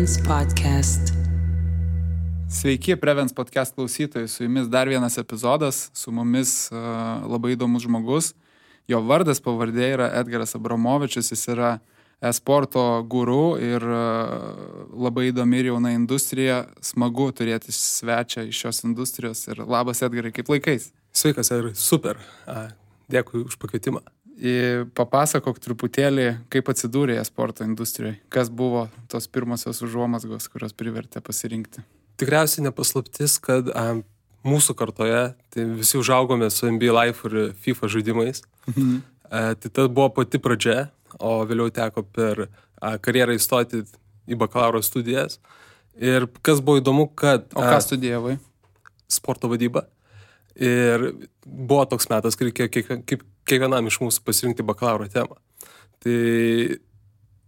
Prevens Podcast. Sveiki, Prevens Podcast klausytojai, su jumis dar vienas epizodas, su mumis labai įdomus žmogus. Jo vardas, pavardė yra Edgaras Abramovičius, jis yra e-sporto guru ir labai įdomi ir jauna industrija. Smagu turėti svečią iš šios industrijos ir labas Edgarai, kaip laikais? Sveikas, Edgarai, super. Dėkui už pakvietimą. Papasakok truputėlį, kaip atsidūrė e-sporto industrijoje. Kas buvo tos pirmosios užuomazgos, kurios privertė pasirinkti? Tikriausiai nepaslaptis, kad mūsų kartoje tai visi užaugome su NBA Live ir FIFA žaidimais. Tai ta buvo pati pradžia, o vėliau teko per karjerą įstoti į bakalauro studijas. Ir kas buvo įdomu, kad... O ką studijavai? Sporto vadybą. Ir buvo toks metas, kai reikėjo kiekvienam iš mūsų pasirinkti bakalauro temą. Tai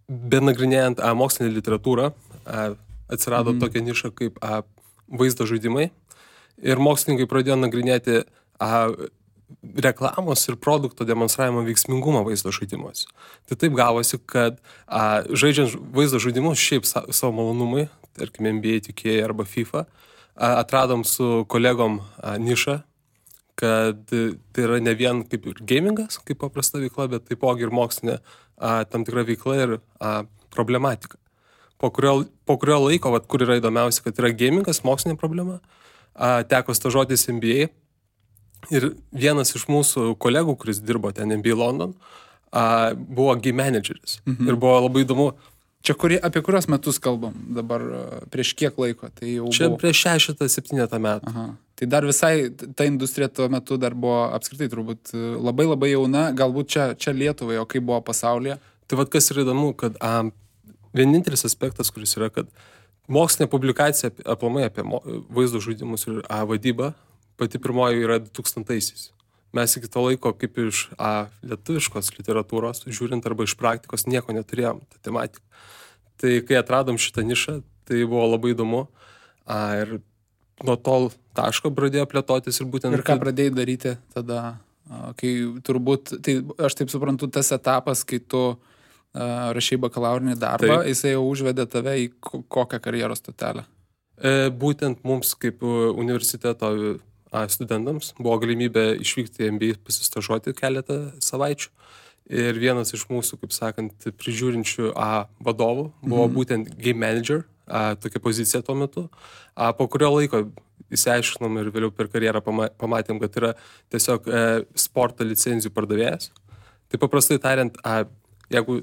benagrinėjant mokslinę literatūrą, atsirado tokia niša kaip vaizdo žaidimai. Ir mokslininkai pradėjo nagrinėti reklamos ir produkto demonstravimo veiksmingumą vaizdo žaidimuose. Tai taip gavosi, kad žaidžiant vaizdo žaidimus šiaip savo malonumai, tarkim NBA, 2K arba FIFA, atradom su kolegom nišą, kad tai yra ne vien kaip ir gamingas, kaip paprasta veikla, bet taipogi ir mokslinė tam tikra veikla ir problematika. Po kurio laiko, kur yra įdomiausia, kad yra gamingas, mokslinė problema, teko stažuotis NBA ir vienas iš mūsų kolegų, kuris dirbo ten NBA London, buvo game manageris. Ir buvo labai įdomu. Čia apie kurios metus kalbam dabar, prieš kiek laiko? Tai jau čia buvo... prieš 6-7 metų. Aha. Tai dar visai ta industrija tuo metu dar buvo apskritai turbūt labai jauna, galbūt čia Lietuvai, o kaip buvo pasaulyje? Tai kas yra įdomu, kad vienintelis aspektas, kuris yra, kad mokslinė publikacija aplamai apie vaizdo žaidimus ir vadybą, pati pirmoji yra 2000-aisiais. Mes iki to laiko, kaip iš lietuviškos literatūros, žiūrint arba iš praktikos, nieko neturėjom, tą tematiką. Tai kai atradom šitą nišą, tai buvo labai įdomu. Ir nuo to taško pradėjo plėtotis ir būtent... Ir ką pradėjai daryti tada, kai turbūt, tai aš taip suprantu, tas etapas, kai tu rašai bakalaurinį darbą, jisai jau užvedė tave į kokią karjeros stotelę? Būtent mums kaip universiteto studentams buvo galimybė išvykti į NBA pasistažuoti keletą savaičių. Ir vienas iš mūsų, kaip sakant, prižiūrinčių vadovų buvo būtent game manager, tokia pozicija tuo metu. Po kurio laiko įsiaiškinom ir vėliau per karjerą pamatėm, kad yra tiesiog sporto licenzijų pardavėjas. Tai paprastai tariant, jeigu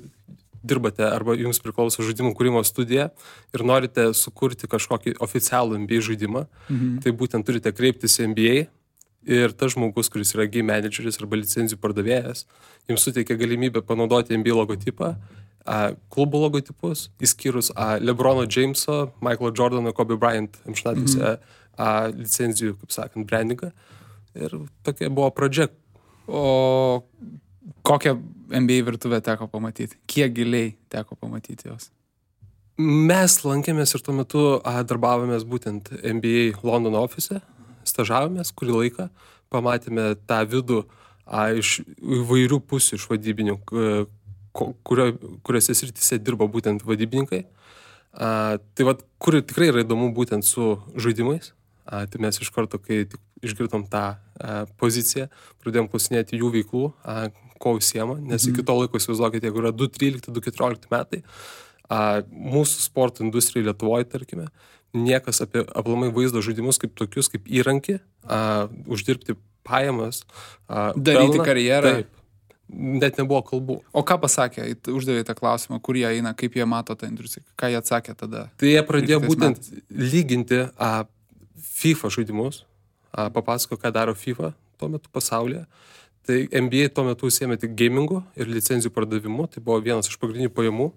dirbate arba jums priklauso žaidimų kūrimo studija ir norite sukurti kažkokį oficialų NBA žaidimą, tai būtent turite kreiptis į NBA ir tas žmogus, kuris yra game manageris arba licenzijų pardavėjas, jums suteikia galimybę panaudoti NBA logotipą, klubo logotipus, išskyrus LeBrono Jameso, Michaelo Jordano, Kobe Bryant amžinatilsį licenzijų, kaip sakant, brandingą. Ir tokia buvo pradžia. O kokią NBA virtuvę teko pamatyti? Kiek giliai teko pamatyti jos? Mes lankėmės ir tuo metu darbavomės būtent NBA Londono ofise, stažavomės kurį laiką, pamatėme tą vidų iš įvairių pusių iš vadybinių, kuriuose srityse dirba būtent vadybininkai. Tai kur tikrai yra įdomu būtent su žaidimais, tai mes iš karto, kai išgirdom tą poziciją, pradėjom klausinėti jų veiklų, ko užsiema, nes iki to laiko įsivaizduokite, jeigu yra 2013-2014 metai, mūsų sporto industrijai Lietuvoje, tarkime, niekas apie aplamai vaizdo žaidimus kaip tokius, kaip įrankį, uždirbti pajamas, daryti karjerą. Taip, net nebuvo kalbų. O ką pasakė, uždavė tą klausimą, kur jie eina, kaip jie mato tą industriją, ką jie atsakė tada? Tai jie pradėjo būtent lyginti FIFA žaidimus, papasako, ką daro FIFA tuo metu pasaulyje. Tai NBA tuo metu užsiėmė tik gamingu ir licenzijų pardavimu, tai buvo vienas iš pagrindinių pajamų.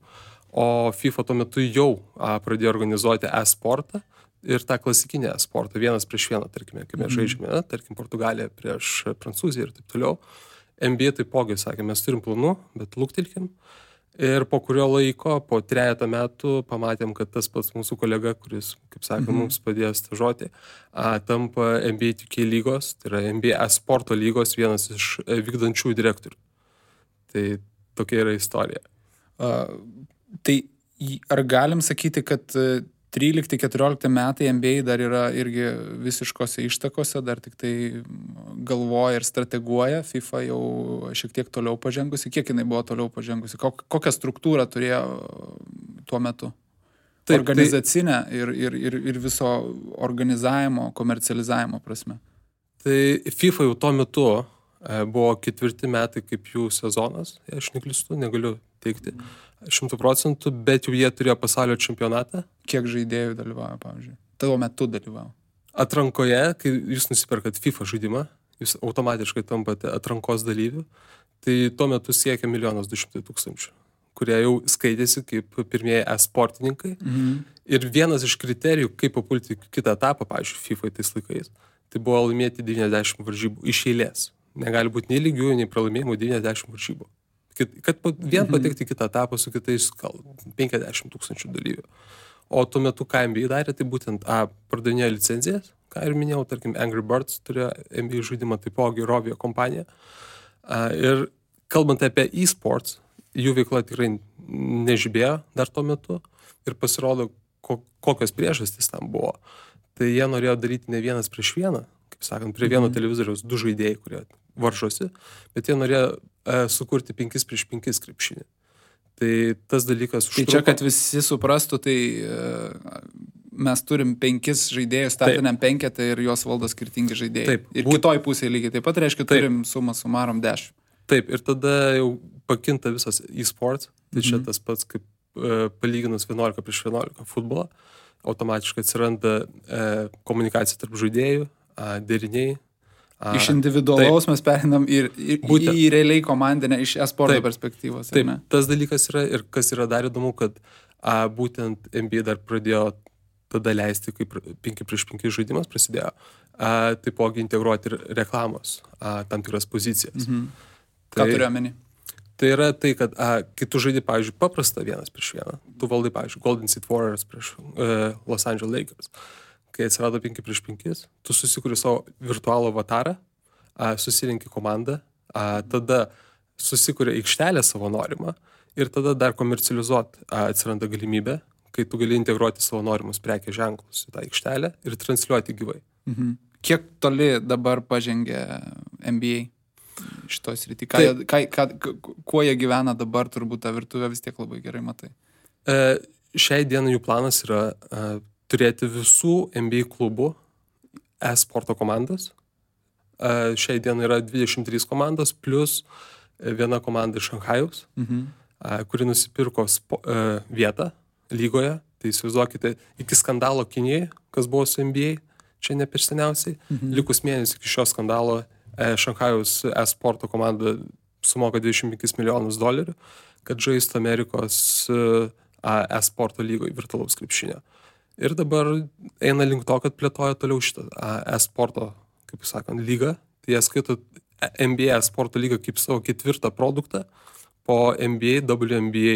O FIFA tuo metu jau pradėjo organizuoti e-sportą ir tą klasikinę e-sportą, vienas prieš vieną, tarkime, kai mes žaidžiame, tarkim, Portugalija prieš Prancūziją ir taip toliau. NBA taipogi sakė, mes turim planų, bet luktelkim. Ir po kurio laiko, po 3 metų, pamatėm, kad tas pats mūsų kolega, kuris, kaip sakė, mums padėjo stažuoti, tampa NBA 2K lygos, tai yra NBA e-sporto lygos vienas iš vykdančių direktorių. Tai tokia yra istorija. Tai Ar galim sakyti, kad 13-14 metai NBA dar yra irgi visiškose ištakose, dar tik tai galvoja ir strateguoja, FIFA jau šiek tiek toliau pažengusi, kiek jinai buvo toliau pažengusi, kokią struktūrą turėjo tuo metu? Taip, organizacinę ir viso organizavimo, komercializavimo prasme. Tai FIFA jau tuo metu buvo 4 metai kaip jų sezonas, aš neklystu, negaliu teikti 100%, bet jau jie turėjo pasaulio čempionatą. Kiek žaidėjų dalyvavo, pavyzdžiui? Tavo metu dalyvavo? Atrankoje, kai jūs nusipirkat FIFA žaidimą, jūs automatiškai tampate atrankos dalyvių, tai tuo metu siekia 1 200 000, kurie jau skaitėsi kaip pirmieji e-sportininkai. Ir vienas iš kriterijų, kaip papulti kitą etapą, pavyzdžiui, FIFA tais laikais, tai buvo laimėti 90 varžybų iš eilės. Negali būti nei lygių, nei pralaimėjimų 90 varžybų. Kad vien patekti kitą etapą su kitais 50 000 dalyvių. O tuo metu, ką NBA darė, tai būtent pardavinėjo licenzijas, ką ir minėjau, tarkim, Angry Birds turėjo NBA žaidimą, taipogi Rovio kompanija. Ir kalbant apie e-sports, jų veikla tikrai nežibėjo dar tuo metu ir pasirodo, kokios priežastys tam buvo. Tai jie norėjo daryti ne vienas prieš vieną, kaip sakant, prie vieno televizoriaus 2 žaidėjai, kurie varžosi, bet jie norėjo sukurti 5 prieš 5 krepšinį. Tai tas dalykas užtruko. Tai čia, kad visi suprastų, tai mes turim 5 žaidėjus, startiniam 5 ir juos valdo skirtingi žaidėjai. Taip, ir kitoj pusėje lygiai taip pat reiškia, turim sumą sumarom 10. Taip, ir tada jau pakinta visas e-sports, tai čia tas pats kaip palyginus 11 prieš 11 futbolą, automatiškai atsiranda komunikacija tarp žaidėjų, deriniai. Iš individualaus mes perinam į realiai komandinę iš e-sporto perspektyvos. Taip, tas dalykas yra ir kas yra dar įdomu, kad būtent NBA dar pradėjo tada leisti, kaip 5 prieš 5 žaidimas prasidėjo, taipogi integruoti ir reklamos tam tikras pozicijas. Ką turiu omeny? Tai yra tai, kad kai tu žaidi, pavyzdžiui, paprastą 1 prieš 1, tu valdai, pavyzdžiui, Golden State Warriors prieš Los Angeles Lakers. Kai atsirado 5 prieš 5, tu susikuri savo virtualų avatarą, susirinki komandą, tada susikuri aikštelę savo norimą ir tada dar komercializuoti atsiranda galimybė, kai tu gali integruoti savo norimus prekės ženklus į tą aikštelę ir transliuoti gyvai. Kiek toli dabar pažengė NBA šitos srity? Kuo jie gyvena dabar, turbūt tą virtuvę vis tiek labai gerai matai. Šiai dienai jų planas yra turėti visų NBA klubų e-sporto komandas. Šiai dienai yra 23 komandos, plus viena komanda iš Šanchajaus, kuri nusipirko vietą lygoje. Tai įsivaizduokite, iki skandalo Kinijoje, kas buvo su NBA, čia ne per seniausiai, likus mėnesį iki šio skandalo Šanchajaus e-sporto komanda sumoka $25 milijonus, kad žaistų Amerikos e-sporto lygoje virtualaus krepšinio. Ir dabar eina link to, kad plėtoja toliau šitą e-sporto, kaip sakant, lygą. Tai jie skaito NBA e-sporto lygą kaip savo 4 produktą po NBA, WNBA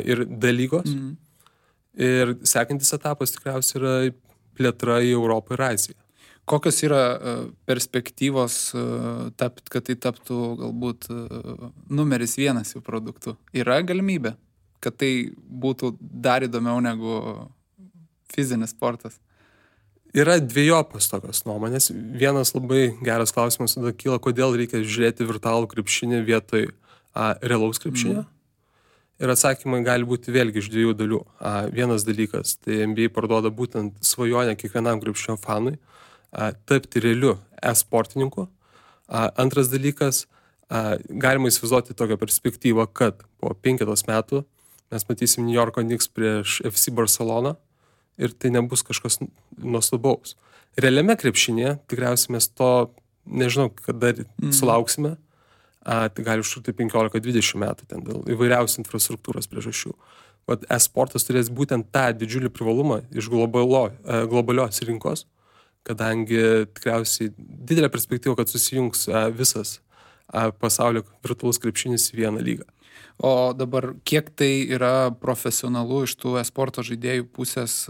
ir D lygos. Ir sekantis etapas tikriausiai yra plėtra į Europą ir Aziją. Kokios yra perspektyvos, kad tai taptų galbūt numeris 1 jų produktų? Yra galimybė, kad tai būtų dar įdomiau negu fizinis sportas? Yra dviejopas tokios nuomonės. Vienas labai geras klausimas tada kyla, kodėl reikia žiūrėti virtualų krepšinį vietoj realaus krepšinio. Ir atsakymai gali būti vėlgi iš 2 dalių. Vienas dalykas, tai NBA parduoda būtent svajonę kiekvienam krepšinio fanui tapti realiu e-sportininku. Antras dalykas, galima įsivaizduoti tokią perspektyvą, kad po 5 metų mes matysim New Yorko Knicks prieš FC Barcelona ir tai nebus kažkas nuostabaus. Realiame krepšinėje tikriausiai mes to, nežinau, kada sulauksime, tai gali užtrukti 15-20 metų ten dėl įvairiausių infrastruktūros priežasčių. E-sportas turės būtent tą didžiulį privalumą iš globalios rinkos, kadangi tikriausiai didelė perspektyva, kad susijungs visas pasaulio virtualus krepšinis į vieną lygą. O dabar kiek tai yra profesionalu iš tų e-sporto žaidėjų pusės?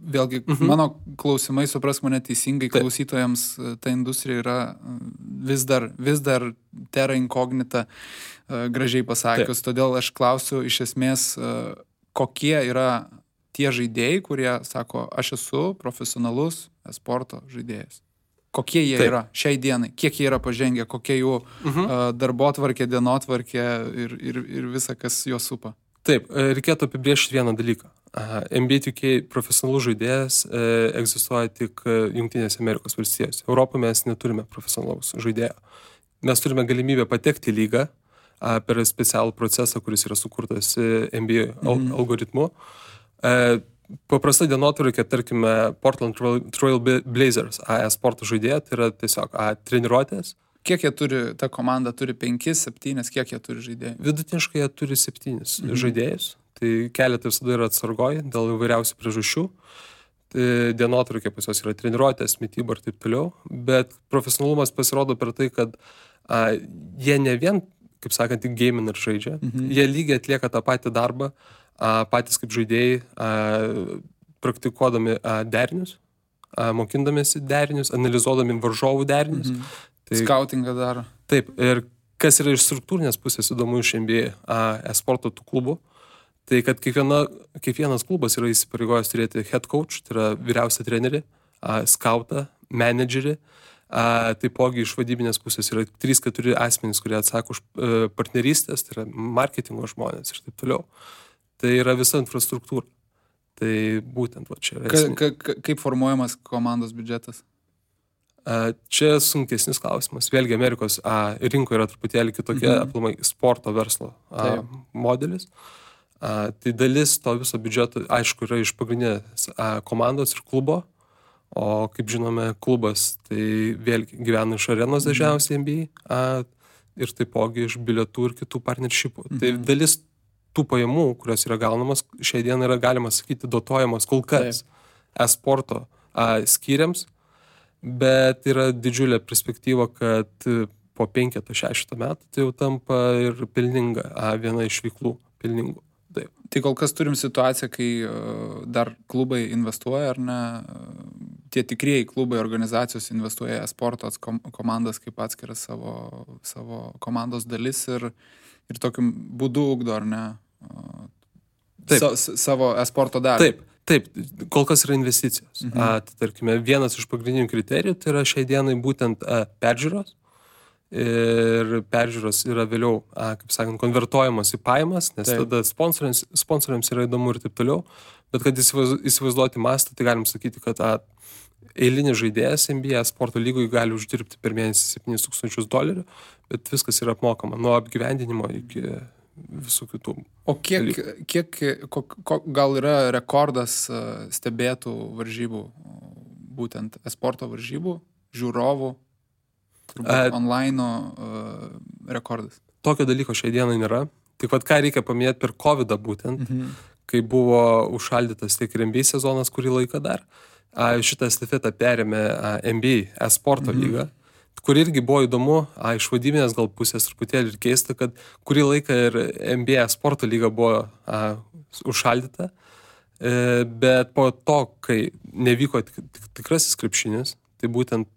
Vėlgi, mano klausimai, supras mane teisingai, klausytojams ta industrija yra vis dar terra incognita, gražiai pasakius. Todėl aš klausiu iš esmės, kokie yra tie žaidėjai, kurie sako, aš esu profesionalus esporto žaidėjas. Kokie jie yra šiai dienai, kiek jie yra pažengę, kokie jų darbotvarkė, dienotvarkė ir visa, kas juos supa. Taip, reikėtų apibrėžti vieną dalyką. NBA 2K profesionalus žaidėjas egzistuoja tik Jungtinėse Amerikos valstijose. Europoje mes neturime profesionalaus žaidėjo. Mes turime galimybę patekti į lygą per specialų procesą, kuris yra sukurtas NBA algoritmu. Paprasta dienotvarkė, tarkime, Portland Trail Blazers sporto žaidėja, tai yra tiesiog treniruotės. Kiek jie turi, ta komanda turi 5, 7, kiek jie turi žaidėjų? Vidutiniškai jie turi 7 žaidėjus, tai keletą visada yra atsargoji dėl įvairiausių priežasčių. Tai dienotvarkė pas juos yra treniruotės, mityba ir taip toliau, bet profesionalumas pasirodo per tai, kad jie ne vien, kaip sakant, tik gaming ir žaidžia, jie lygiai atlieka tą patį darbą, patys kaip žaidėjai, praktikuodami derinius, mokindamėsi derinius, analizuodami varžovų derinius. Tai, skautingą daro. Taip, ir kas yra iš struktūrinės pusės įdomu iš NBA sporto tų klubų, tai kad kiekvienas klubas yra įsipareigojęs turėti head coach, tai yra vyriausią trenerį, skautą, menedžerį, taipogi iš vadybinės pusės yra 3-4 asmenys, kurie atsako už partnerystės, tai yra marketingo žmonės ir taip toliau. Tai yra visa infrastruktūra. Tai būtent čia yra. Kaip formuojamas komandos biudžetas? Čia sunkesnis klausimas. Vėlgi Amerikos rinkoje yra truputėlį kitokia aplamai sporto verslo modelis. Tai dalis to viso biudžeto, aišku, yra iš pagrindinės komandos ir klubo, o kaip žinome, klubas tai vėlgi gyvena iš arenos dažniausiai NBA ir taipogi iš bilietų ir kitų partnershipų. Tai dalis tų pajamų, kurios yra gaunamas, šiai dienai yra galima sakyti dotuojamas kol kas sporto skyriams, bet yra didžiulė perspektyva, kad po 5-6 metų tai jau tampa ir pelninga, viena iš veiklų pelningų. Taip. Tai kol kas turim situaciją, kai dar klubai investuoja, ar ne? Tie tikrieji klubai, organizacijos investuoja sporto komandas kaip atskiras savo komandos dalis ir tokiu būdu ugdo, ar ne? Savo esporto dalį. Taip, kol kas yra investicijos. Tai tarkime, vienas iš pagrindinių kriterijų tai yra šiai dienai būtent peržiūros. Ir peržiūros yra vėliau, kaip sakant, konvertuojamos į pajamas, nes tada sponsoriams yra įdomu ir taip toliau. Bet kad įsivaizduoti mastą, tai galim sakyti, kad eilinis žaidėjas NBA sporto lygoje gali uždirbti per mėnesį $7,000, bet viskas yra apmokama nuo apgyvendinimo iki visų kitų. O kiek gal yra rekordas stebėtų varžybų, būtent esporto varžybų, žiūrovų, online rekordas? Tokio dalyko šiai dienai nėra. Tik ką reikia paminėti per COVID-ą būtent, kai buvo užšaldytas tiek ir NBA sezonas kurį laiką dar. Šitą estafetą perėmė NBA esporto lyga, kur irgi buvo įdomu, iš vadybinės gal pusės truputėlį ir keista, kad kurį laiką ir NBA sporto lyga buvo užšaldyta, bet po to, kai nevyko tikrasis krepšinis, tai būtent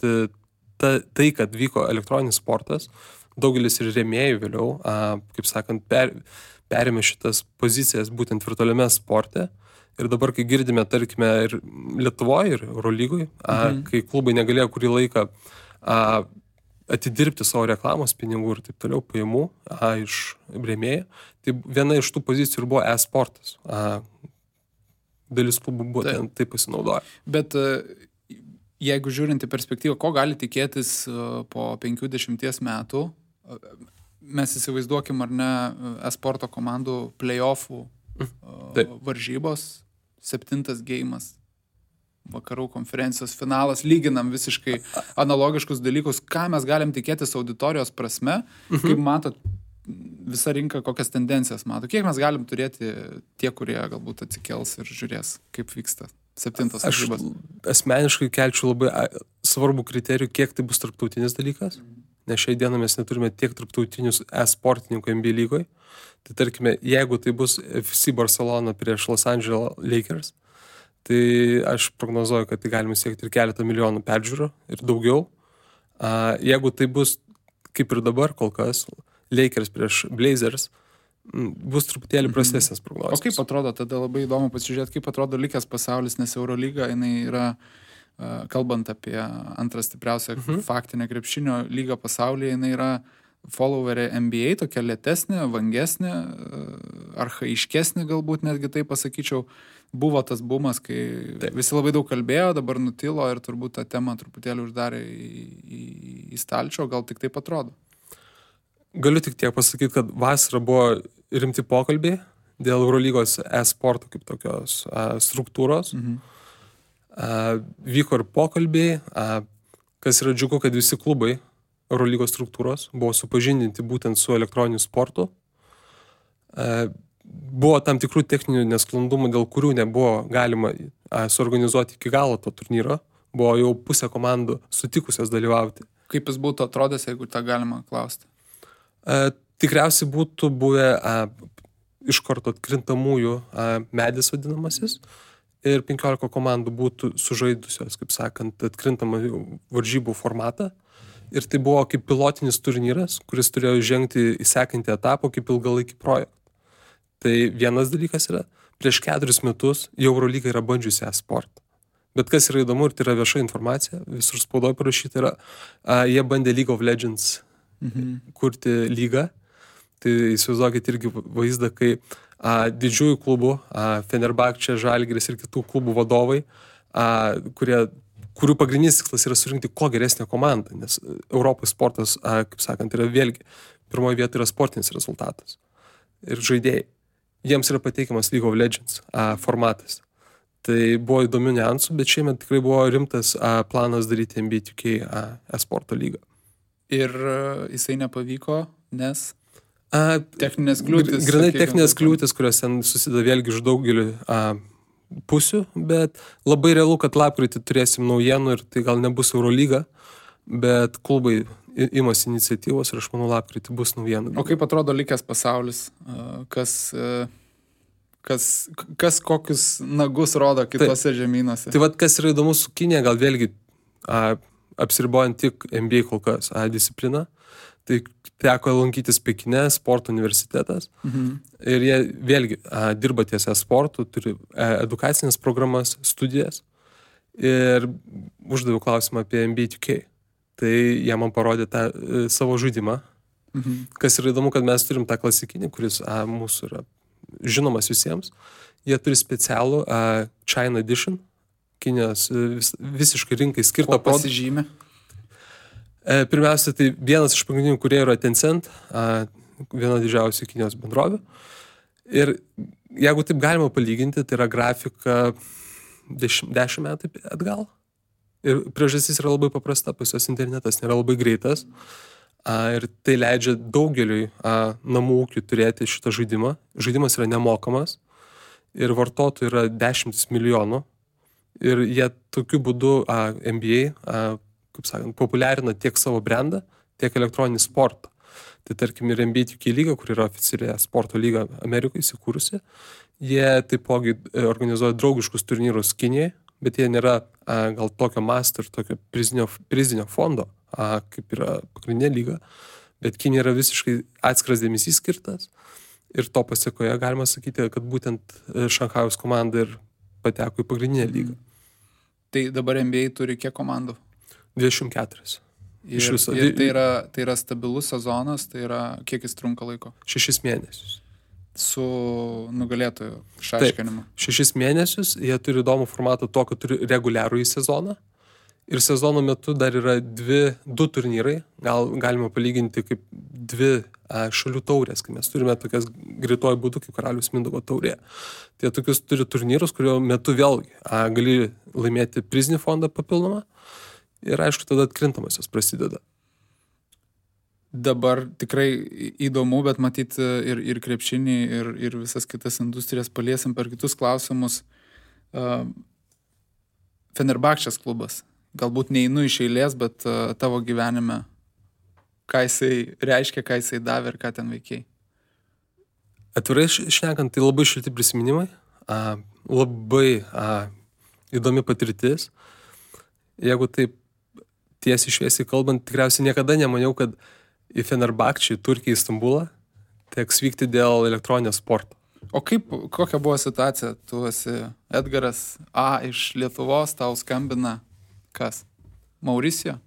tai, kad vyko elektroninis sportas, daugelis ir rėmėjų vėliau, kaip sakant, perėmė šitas pozicijas būtent virtualiame sporte. Ir dabar, kai girdime, tarkime, ir Lietuvoje, ir Eurolygoje, kai klubai negalėjo kurį laiką atidirbti savo reklamos pinigų ir taip toliau pajamų iš rėmėjų, tai viena iš tų pozicijų ir buvo e-sportas. Dalis klubų buvo tai pasinaudoja. Bet jeigu žiūrint į perspektyvą, ko gali tikėtis po 50 metų, mes įsivaizduokim, ar ne, e-sporto komandų play-offų varžybos, 7 geimas, vakarų konferencijos finalas, lyginam visiškai analogiškus dalykus, ką mes galim tikėtis auditorijos prasme, kaip matot, visa rinka kokias tendencijas mato, kiek mes galim turėti tie, kurie galbūt atsikels ir žiūrės, kaip vyksta 7 varžybos. Aš asmeniškai kelčiau labai svarbų kriterijų, kiek tai bus tarptautinis dalykas, nes šiai dieną mes neturime tiek tarptautinius e-sportininkų NBA lygoje. Tai tarkime, jeigu tai bus FC Barcelona prieš Los Angeles Lakers, tai aš prognozuoju, kad tai galime siekti ir keletą milijonų peržiūrų ir daugiau. Jeigu tai bus, kaip ir dabar kol kas, Lakers prieš Blazers, bus truputėlį prastesnės prognozijos. O kaip atrodo, tada labai įdomu pasižiūrėti, kaip atrodo likęs pasaulis, nes Eurolyga, jinai yra, kalbant apie antrą stipriausią faktinę krepšinio lygą pasaulyje, jinai yra followerė NBA, tokia lėtesnė, vangesnė, archaiškesnė galbūt netgi taip pasakyčiau. Buvo tas bumas, kai visi labai daug kalbėjo, dabar nutilo ir turbūt tą temą truputėlį uždarė į stalčių, gal tik taip atrodo. Galiu tik tiek pasakyti, kad vasarą buvo rimti pokalbiai dėl Eurolygos e-sporto kaip tokios struktūros. Vyko ir pokalbiai, kas yra džiugu, kad visi klubai Eurolygos struktūros buvo supažindinti būtent su elektroniniu sportu. Buvo tam tikrų techninių nesklandumų, dėl kurių nebuvo galima suorganizuoti iki galo to turnyro. Buvo jau pusė komandų sutikusios dalyvauti. Kaip jis būtų atrodęs, jeigu tą galima klausti? Tikriausiai būtų buvę iš karto atkrintamųjų medis vadinamasis ir 15 komandų būtų sužaidusios, kaip sakant, atkrintamą varžybų formatą. Ir tai buvo kaip pilotinis turnyras, kuris turėjo žengti į sekantį etapą kaip ilgalaikį projektą. Tai vienas dalykas yra, prieš 4 metus jau Eurolyga yra bandžiusi e-sportą. Bet kas yra įdomu ir tai yra vieša informacija, visur spaudoje parašyta yra, jie bandė League of Legends kurti lygą. Tai įsivaizduokit irgi vaizdą, kai didžiųjų klubų, Fenerbahčė, Žalgiris ir kitų klubų vadovai, kurių pagrindinis tikslas yra surinkti kuo geresnę komandą, nes Europos sportas, kaip sakant, yra vėlgi, pirmoje vietoje yra sportinis rezultatas ir žaidėjai. Jiems yra pateikiamas League of Legends formatas. Tai buvo įdomių niuansų, bet šiemet tikrai buvo rimtas planas daryti NBA 2K e-sporto lygą. Ir jisai nepavyko, nes techninės kliūtis. Grinai techninės kliūtis, kurios ten susideda vėlgi iš daugelių pusių, bet labai realu, kad lapkritį turėsim naujienų ir tai gal nebus Eurolyga, bet klubai imasi iniciatyvos ir aš manau lapkritį bus naujienų. O kaip atrodo likęs pasaulis? Kas kokius nagus rodo kitose žemynuose? Tai vat kas yra įdomu su Kinija, gal vėlgi apsiribojant tik NBA kol kas discipliną, tai teko lankytis Pekine, sporto universitetas ir jie vėlgi dirba ties sportu, turi edukacinės programas, studijas ir uždaviau klausimą apie NBA 2K. Tai jie man parodė tą savo žaidimą. Kas yra įdomu, kad mes turim tą klasikinį, kuris mūsų yra žinomas visiems. Jie turi specialų China Edition, Kinijos visiškai rinkai skirtą produktą. Pasižymė? Pirmiausia, tai vienas iš pagrindinių kurie yra Tencent, viena didžiausių Kinijos bendrovių. Ir jeigu taip galima palyginti, tai yra grafika 10 metų atgal. Ir priežastis yra labai paprasta, pas jos internetas nėra labai greitas ir tai leidžia daugeliui namų ūkių turėti šitą žaidimą. Žaidimas yra nemokamas ir vartotojų yra 10 milijonų ir jie tokiu būdu NBA, kaip sakant, populiarina tiek savo brandą, tiek elektroninį sportą. Tai tarkim ir NBA 2K lyga, kur yra oficialiai sporto lyga Amerikoje įsikūrusi, jie taipogi organizuoja draugiškus turnyrus Kinijai, bet jie nėra gal tokio masto ir tokio prizinio fondo, kaip yra pagrindinė lyga, bet Kinija yra visiškai atskiras dėmesys skirtas ir to pasekoje galima sakyti, kad būtent Šanchajaus komanda ir pateko į pagrindinę lygą. Tai dabar NBA turi kiek komandų? 24. Ir tai yra stabilus sezonas, tai yra kiek jis trunka laiko? 6 mėnesius. Su nugalėtojų išaiškinimu. 6 mėnesius, jie turi įdomų formatą to, kad turi reguliarų į sezoną. Ir sezono metu dar yra 2 turnyrai, galima palyginti kaip 2 šalių taurės, kai mes turime tokias greituoju būdu kaip Karaliaus Mindaugo taurė. Tai tokius turi turnyrus, kurio metu vėlgi gali laimėti prizinį fondą papildomą ir aišku, tada atkrintamosios prasideda. Dabar tikrai įdomu, bet matyt ir krepšinį, ir visas kitas industrijas paliesim per kitus klausimus. Fenerbahčės klubas. Galbūt neinu iš eilės, bet tavo gyvenime, ką jisai reiškia, ką jisai davė ir ką ten veikiai. Atvirai šnekant, tai labai šilti prisiminimai, labai įdomi patirtis. Jeigu taip tiesiai šviesiai kalbant, tikriausiai niekada nemaniau, kad į Fenerbahčę, į Turkiją, į Stambulą, teks vykti dėl elektroninio sporto. O kokia buvo situacija? Tu esi Edgaras A iš Lietuvos, tau skambina kas? Mauricijo?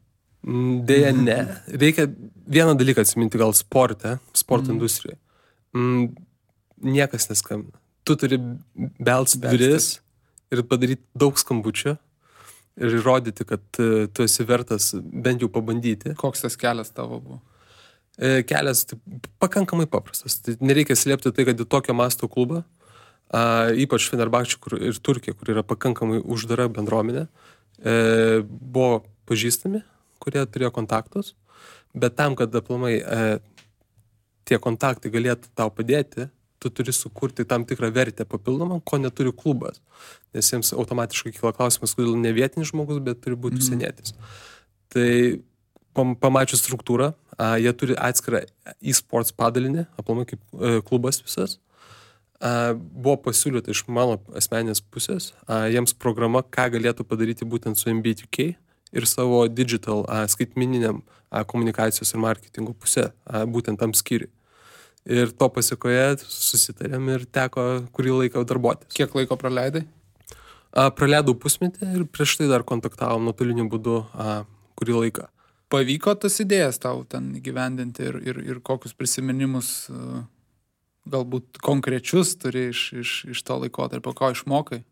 Deja, ne. Reikia vieną dalyką atsiminti gal sporto industrijoje. Niekas neskambina. Tu turi belst duris ir padaryti daug skambučių ir įrodyti, kad tu esi vertas bent jau pabandyti. Koks tas kelias tavo buvo? Kelias pakankamai paprastas. Tai nereikia slėpti tai, kad į tokio masto klubą, ypač Fenerbahčė ir Turkija, kur yra pakankamai uždara bendruomenė, buvo pažįstami, kurie turėjo kontaktus, bet tam, kad aplamai tie kontaktai galėtų tau padėti, tu turi sukurti tam tikrą vertę papildomą, ko neturi klubas. Nes jiems automatiškai kyla klausimas, kodėl ne vietinis žmogus, bet turi būti užsienietis. Tai pamačius struktūrą, jie turi atskirą e-sports padalinį, aplamai kaip klubas visas. Buvo pasiūlyta iš mano asmeninės pusės, jiems programa, ką galėtų padaryti būtent su MBA2K ir savo digital skaitmeniniam komunikacijos ir marketingo pusė, būtent tam skyriui. Ir to pasiekoje susitarėm ir teko kurį laiką darbuotis. Kiek laiko praleidai? Praleidau pusmetį ir prieš tai dar kontaktavom nuotoliniu būdu kurį laiką. Pavyko tas idėjas tau ten įgyvendinti ir kokius prisiminimus galbūt konkrečius turi iš to laikotarpio, ko išmokai,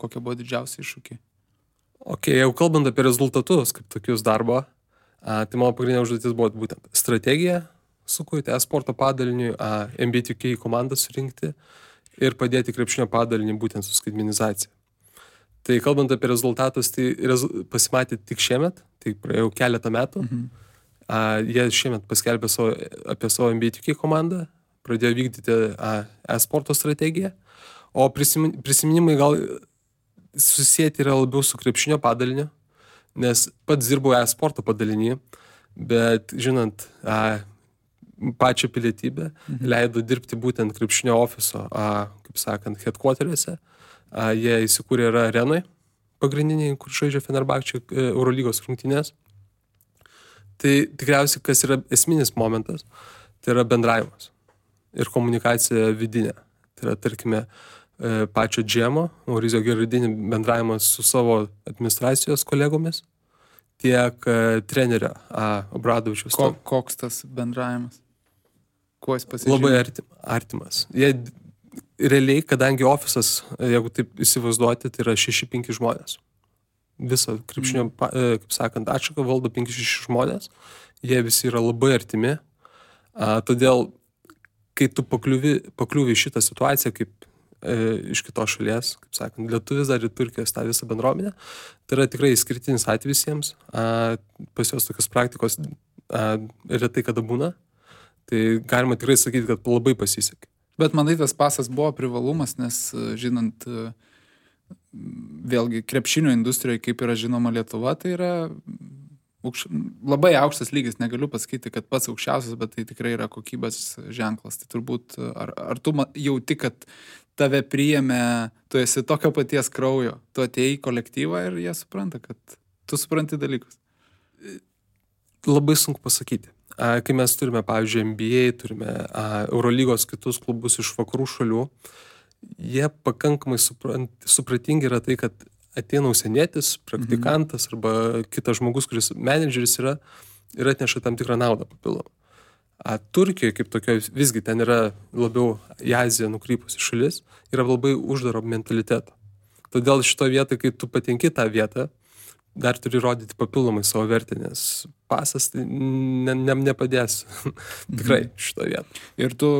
kokie buvo didžiausi iššūkiai? Jau kalbant apie rezultatus, kaip tokius darbo, tai mano pagrindinė užduotis buvo būtent strategija, sukurti e-sporto padaliniui, MBA2K komandą surinkti ir padėti krepšinio padalinį būtent su skaitmenizacija. Tai kalbant apie rezultatus, tai pasimatė tik šiemet, tai praėjau keletą metų. Jie šiemet paskelbė apie savo MBA2K komandą, pradėjo vykdyti e-sporto strategiją, o prisiminimai gal susijęti yra labiau su krepšinio padaliniu, nes pats dirbau e-sporto padalinį, bet žinant pačią pilietybę, leido dirbti būtent krepšinio ofiso, kaip sakant, headquarteriuose. Jie įsikūrė yra arenoj pagrindiniai, kur žaidžia Fenerbahčė Eurolygos rungtynės. Tai tikriausiai, kas yra esminis momentas, tai yra bendravimas ir komunikacija vidinė. Tai yra, tarkime, pačio GM-o, Mauricio Gerardini bendravimas su savo administracijos kolegomis, tiek trenerio Obradovičiaus. Koks tas bendravimas? Kuo jis pasižymė? Labai artimas. Jie realiai, kadangi ofisas, jeigu taip įsivaizduoti, tai yra 6-5 žmonės. Visą krepšinio, kaip sakant, atšaką valdo 5-6 žmonės. Jie visi yra labai artimi. Todėl, kai tu pakliuvi šitą situaciją, kaip iš kitos šalies, kaip sakant, lietuvis dar ir Turkijos tą visą bendruomenę, tai yra tikrai išskirtinis atvejis jiems. Pas jos tokios praktikos retai kada būna. Tai galima tikrai sakyti, kad labai pasisekė. Bet manai, tas pasas buvo privalumas, nes žinant, vėlgi, krepšinio industrijoje, kaip yra žinoma Lietuva, tai yra labai aukštas lygis. Negaliu pasakyti, kad pats aukščiausias, bet tai tikrai yra kokybės ženklas. Tai turbūt, ar tu jauti, kad tave priėmė, tu esi tokio paties kraujo, tu atėjai į kolektyvą ir jie supranta, kad tu supranti dalykus? Labai sunku pasakyti. Kai mes turime, pavyzdžiui, NBA, turime Eurolygos kitus klubus iš vakarų šalių, jie pakankamai supratingi yra tai, kad ateina užsienietis, praktikantas arba kitas žmogus, kuris menedžeris yra ir atneša tam tikrą naudą papildomą. Turkijoje kaip tokio visgi ten yra labiau į Aziją nukrypusi šalis, yra labai uždaro mentaliteto. Todėl šito vietoj, kai tu patenki tą vietą, dar turi rodyti papildomai savo vertę, nes pasas tai nepadės tikrai šito vietą. Ir tu,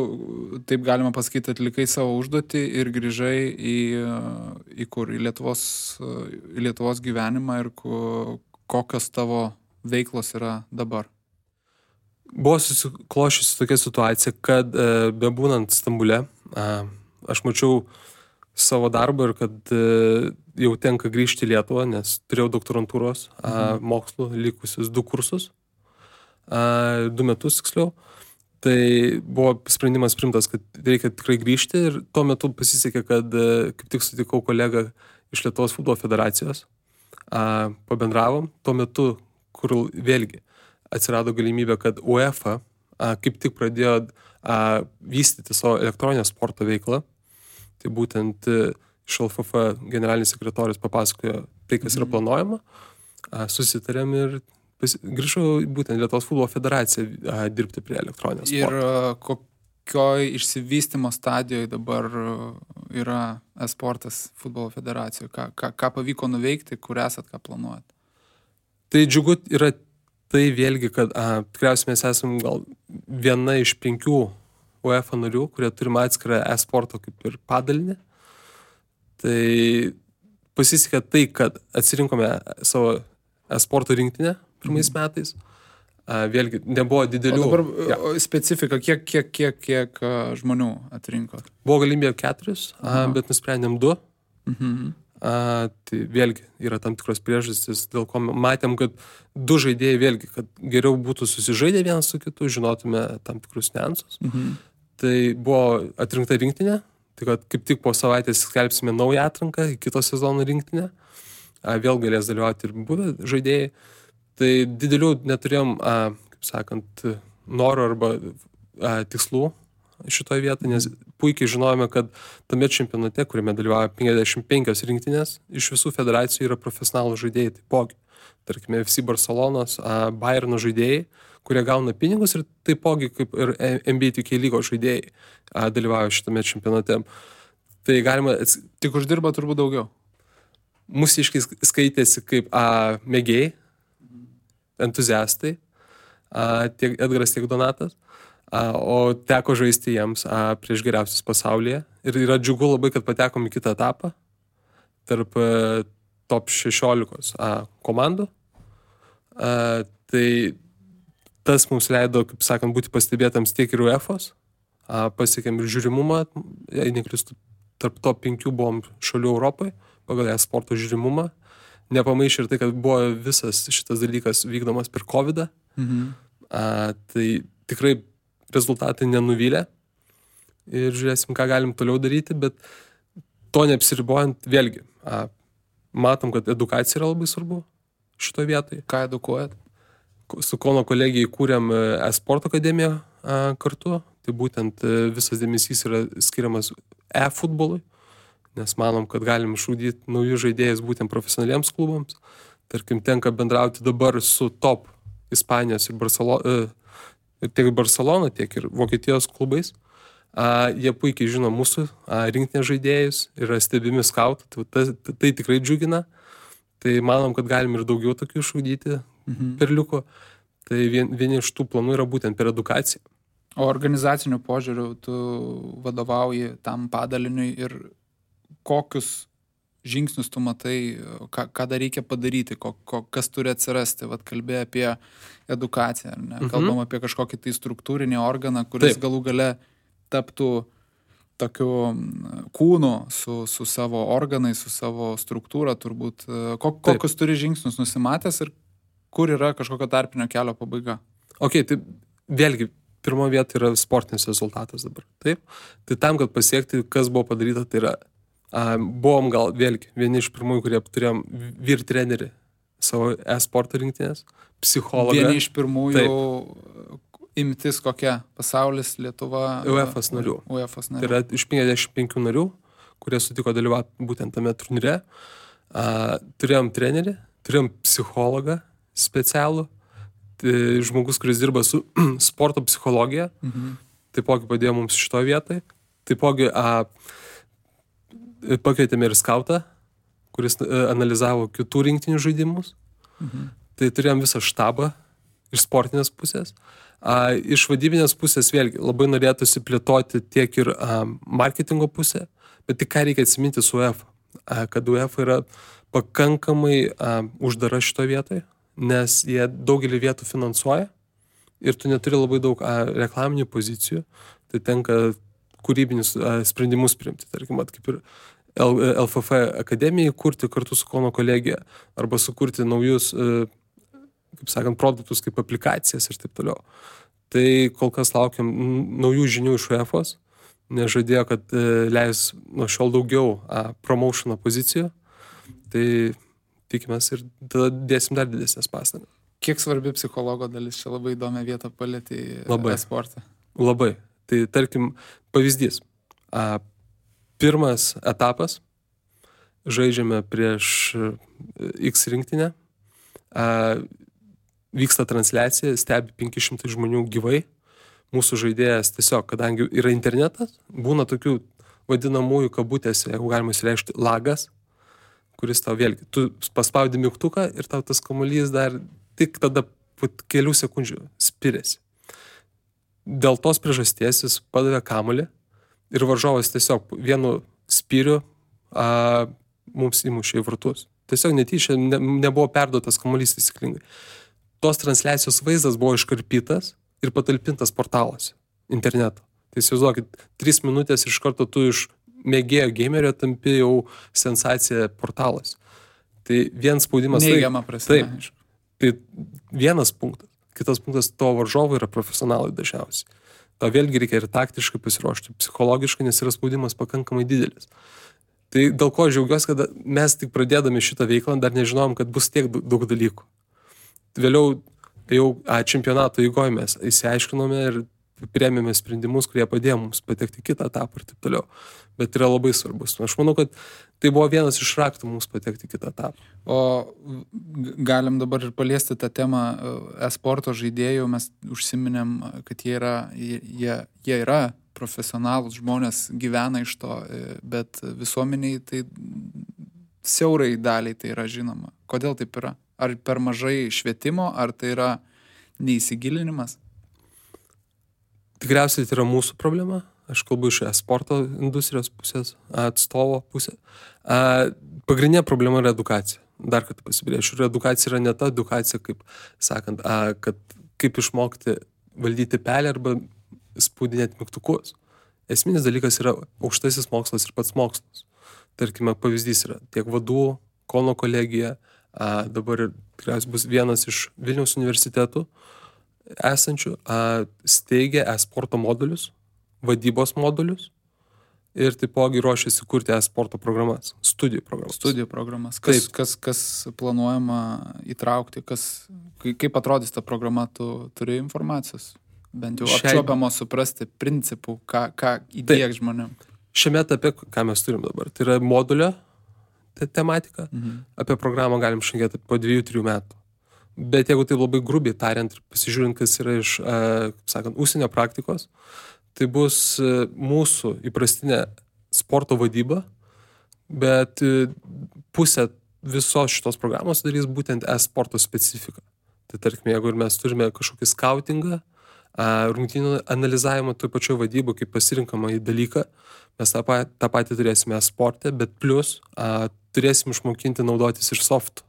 taip galima pasakyti, atlikai savo užduotį ir grįžai į kur? Į Lietuvos gyvenimą ir kokios tavo veiklos yra dabar? Buvo susiklošiusi tokia situacija, kad bebūnant Stambule, aš mačiau savo darbą ir kad jau tenka grįžti į Lietuvą, nes turėjau doktorantūros mokslų likusius 2 kursus, 2 metus tiksliau. Tai buvo sprendimas priimtas, kad reikia tikrai grįžti ir tuo metu pasisekė, kad kaip tik sutikau kolegą iš Lietuvos futbolo federacijos, pabendravom. Tuo metu, kur vėlgi atsirado galimybė, kad UEFA kaip tik pradėjo vystyti savo elektroninę sporto veiklą. Tai būtent iš LFF generalinis sekretorius papasakojo tai, kas yra planuojama. Susitarėm ir grįžau būtent Lietuvos futbolo federaciją dirbti prie elektroninės sporto. Ir kokioj išsivystymo stadijoje dabar yra e-sportas futbolo federacijoje? Ką pavyko nuveikti, kur esat, ką planuojat? Tai džiugu yra tai vėlgi, kad tikriausiai mes esam gal viena iš 5 UEFA narių, kurie turime atskirą e-sporto kaip ir padalinį. Tai pasisekė tai, kad atsirinkome savo e-sporto rinktinę pirmais metais. Vėlgi, nebuvo didelių... O dabar specifika, kiek žmonių atrinko? Buvo galimybė 4, bet nusprendėm 2. Tai vėlgi yra tam tikros priežastys, dėl ko matėm, kad 2 žaidėjai vėlgi, kad geriau būtų susižaidę vienas su kitu, žinotume tam tikrus niuansus. Tai buvo atrinkta rinktinė, tai kad kaip tik po savaitės skelbsime naują atranką į kito sezono rinktinę. Vėl galės dalyvauti ir buvę žaidėjai. Tai didelių neturėjom, kaip sakant, noro arba tikslų šitoje vietoje, nes puikiai žinojome, kad tame čempionate, kuriame dalyvauja 55 rinktinės, iš visų federacijų yra profesionalų žaidėjai taipogi. Tarkime, FC Barcelonos, Bayerno žaidėjai, kurie gauna pinigus ir taipogi kaip ir NBA 2K lygos žaidėjai dalyvauja šitame čempionate. Tai galima... Tik uždirba turbūt daugiau. Mūsiškai skaitėsi kaip mėgėjai, entuziastai, tiek Edgaras, tiek Donatas, o teko žaisti jiems prieš geriausius pasaulyje. Ir yra džiugu labai, kad patekom į kitą etapą tarp top 16 komandų. Tai tas mums leido, kaip sakant, būti pastebėtams tiek ir UEFOS, pasiekėm ir žiūrimumą, jei neklystu, tarp top 5 buvom šalių Europoje, pagal e-sporto žiūrimumą. Nepamaišė ir tai, kad buvo visas šitas dalykas vykdomas per COVID-ą. Tai tikrai rezultatai nenuvylė. Ir žiūrėsim, ką galim toliau daryti, bet to neapsiribojant vėlgi. Matom, kad edukacija yra labai svarbu šitoje vietoje. Ką edukuojat? Su Kauno kolegija įkūrėm e-sporto akademiją kartu. Tai būtent visas dėmesys yra skiriamas e-futbolui. Nes manom, kad galim išugdyti naujus žaidėjus būtent profesionaliems klubams. Tarkim, tenka bendrauti dabar su top Ispanijos ir tiek Barcelona, tiek ir Vokietijos klubais. Jie puikiai žino mūsų rinktinės žaidėjus, yra stebimi skautų, tai tikrai džiugina. Tai manom, kad galim ir daugiau tokių išugdyti perliukų. Tai vieni iš tų planų yra būtent per edukaciją. O organizacinių požiūrių tu vadovauji tam padaliniui ir kokius žingsnius tu matai, ką dar reikia padaryti, kas turi atsirasti. Vat kalbėjai apie edukaciją, ne? Kalbam apie kažkokį tai struktūrinį organą, kuris galų gale taptų tokiu kūnu su savo organais, su savo struktūra turbūt. Kokius turi žingsnius nusimatęs ir kur yra kažkokio tarpinio kelio pabaiga? Tai vėlgi, pirmo vieta yra sportinis rezultatas dabar. Taip? Tai tam, kad pasiekti, kas buvo padaryta, tai yra buvom gal vėlgi vieni iš pirmųjų, kurie turėjom vyr trenerį savo e-sporto rinktinės, psichologą. Vieni iš pirmųjų imtis kokia? Pasaulis, Lietuva? UEFOS narių. Tai yra iš 55 narių, kurie sutiko dalyvauti būtent tame turnyre. Turėjom trenerį, turėjom psichologą specialų, žmogus, kuris dirba su sporto psichologija, taipogi padėjo mums šitoje vietoje. Taipogi pakvietėme ir skautą, kuris analizavo kitų rinktinių žaidimus. Tai turėjom visą štabą iš sportinės pusės. Iš vadybinės pusės vėlgi labai norėtųsi plėtoti tiek ir marketingo pusę, bet tik ką reikia atsiminti su UEFA. Kad UEFA yra pakankamai uždara šitoje vietoje, nes jie daugelį vietų finansuoja ir tu neturi labai daug reklaminių pozicijų, tai tenka kūrybinius sprendimus priimti, tarkim, kaip ir LFF akademijai kurti kartu su Kauno kolegija arba sukurti naujus, kaip sakant, produktus kaip aplikacijas ir taip toliau. Tai kol kas laukiam naujų žinių iš UEFOS, nes žadėjo, kad leis nuo šiol daugiau promotiono pozicijų, tai tikimės ir tada dėsim dar didesnės pastangas. Kiek svarbi psichologo dalis? Čia labai įdomią vietą palėtė e-sportą. Labai. Tai tarkim, pavyzdys. Pirmas etapas, žaidžiame prieš X rinktinę, vyksta transliacija, stebi 500 žmonių gyvai, mūsų žaidėjas tiesiog, kadangi yra internetas, būna tokių vadinamųjų kabutėse, jeigu galima įsireikšti, lagas, kuris tau vėlgi, tu paspaudi mygtuką ir tau tas kamuolys dar tik tada po kelių sekundžių spiriasi. Dėl tos priežasties jis padavė kamuolį ir varžovas tiesiog vienu spyriu mums įmušė į vartus. Tiesiog netyčia nebuvo perduotas kamuolys taisyklingai. Tos transliacijos vaizdas buvo iškarpytas ir patalpintas portaluose interneto. Tai įsivaizduokit, 3 minutės iš karto tu iš mėgėjo gamerio tampi jau sensacija portalas. Tai vienas spaudimas... Neigiama prasme. Taip. Tai vienas punktas. Kitas punktas, to varžovai yra profesionalai dažniausiai. To vėlgi reikia ir taktiškai pasiruošti, psichologiškai, nes yra spaudimas pakankamai didelis. Tai dėl ko džiaugiuosi, kad mes tik pradėdami šitą veiklą dar nežinojom, kad bus tiek daug dalykų. Vėliau jau čempionato eigoje mes įsiaiškinome ir priėmėme sprendimus, kurie padėjo mums patekti kitą etapą ir taip toliau. Bet yra labai svarbus. Aš manau, kad tai buvo vienas iš raktų mums patekti kitą etapą. O galim dabar ir paliesti tą temą e-sporto žaidėjų. Mes užsiminėm, kad jie yra profesionalūs žmonės, gyvena iš to, bet visuomeniai tai siaurai daliai tai yra žinoma. Kodėl taip yra? Ar per mažai švietimo, ar tai yra neįsigilinimas? Tikriausiai tai yra mūsų problema. Aš kalbu iš e-sporto industrijos pusės, atstovo pusės. Pagrindinė problema yra edukacija. Dar kartą pasibrėšiu. Ir edukacija yra ne ta edukacija, kaip sakant, kad kaip išmokti valdyti pelę arba spaudinėti mygtukus. Esminis dalykas yra aukštasis mokslas ir pats mokslas. Tarkime, pavyzdys yra tiek vadų, Kauno kolegija, dabar tikriausiai bus vienas iš Vilniaus universitetų esančių, steigia e-sporto modulius, vadybos modulius ir taipogi ruošiasi kurti e-sporto programas, studijų programas. Kas planuojama įtraukti, kaip atrodys ta programa, tu turi informacijos? Bent jau apčiuopiamo suprasti principų, ką įdieg žmonėm. Šiame etape, ką mes turim dabar, tai yra modulio tematika. Apie programą galim šnekėti po 2-3 metų. Bet jeigu tai labai grubiai tariant ir pasižiūrint, kas yra iš, sakant, užsienio praktikos, tai bus mūsų įprastinė sporto vadyba, bet pusė visos šitos programos darys būtent e-sporto specifiką. Tai tarkime, jeigu ir mes turime kažkokį skautingą, rungtynių analizavimą toj pačioj vadybų kaip pasirinkama į dalyką, mes tą patį turėsime e-sporte, bet plus turėsim išmokinti naudotis ir softų.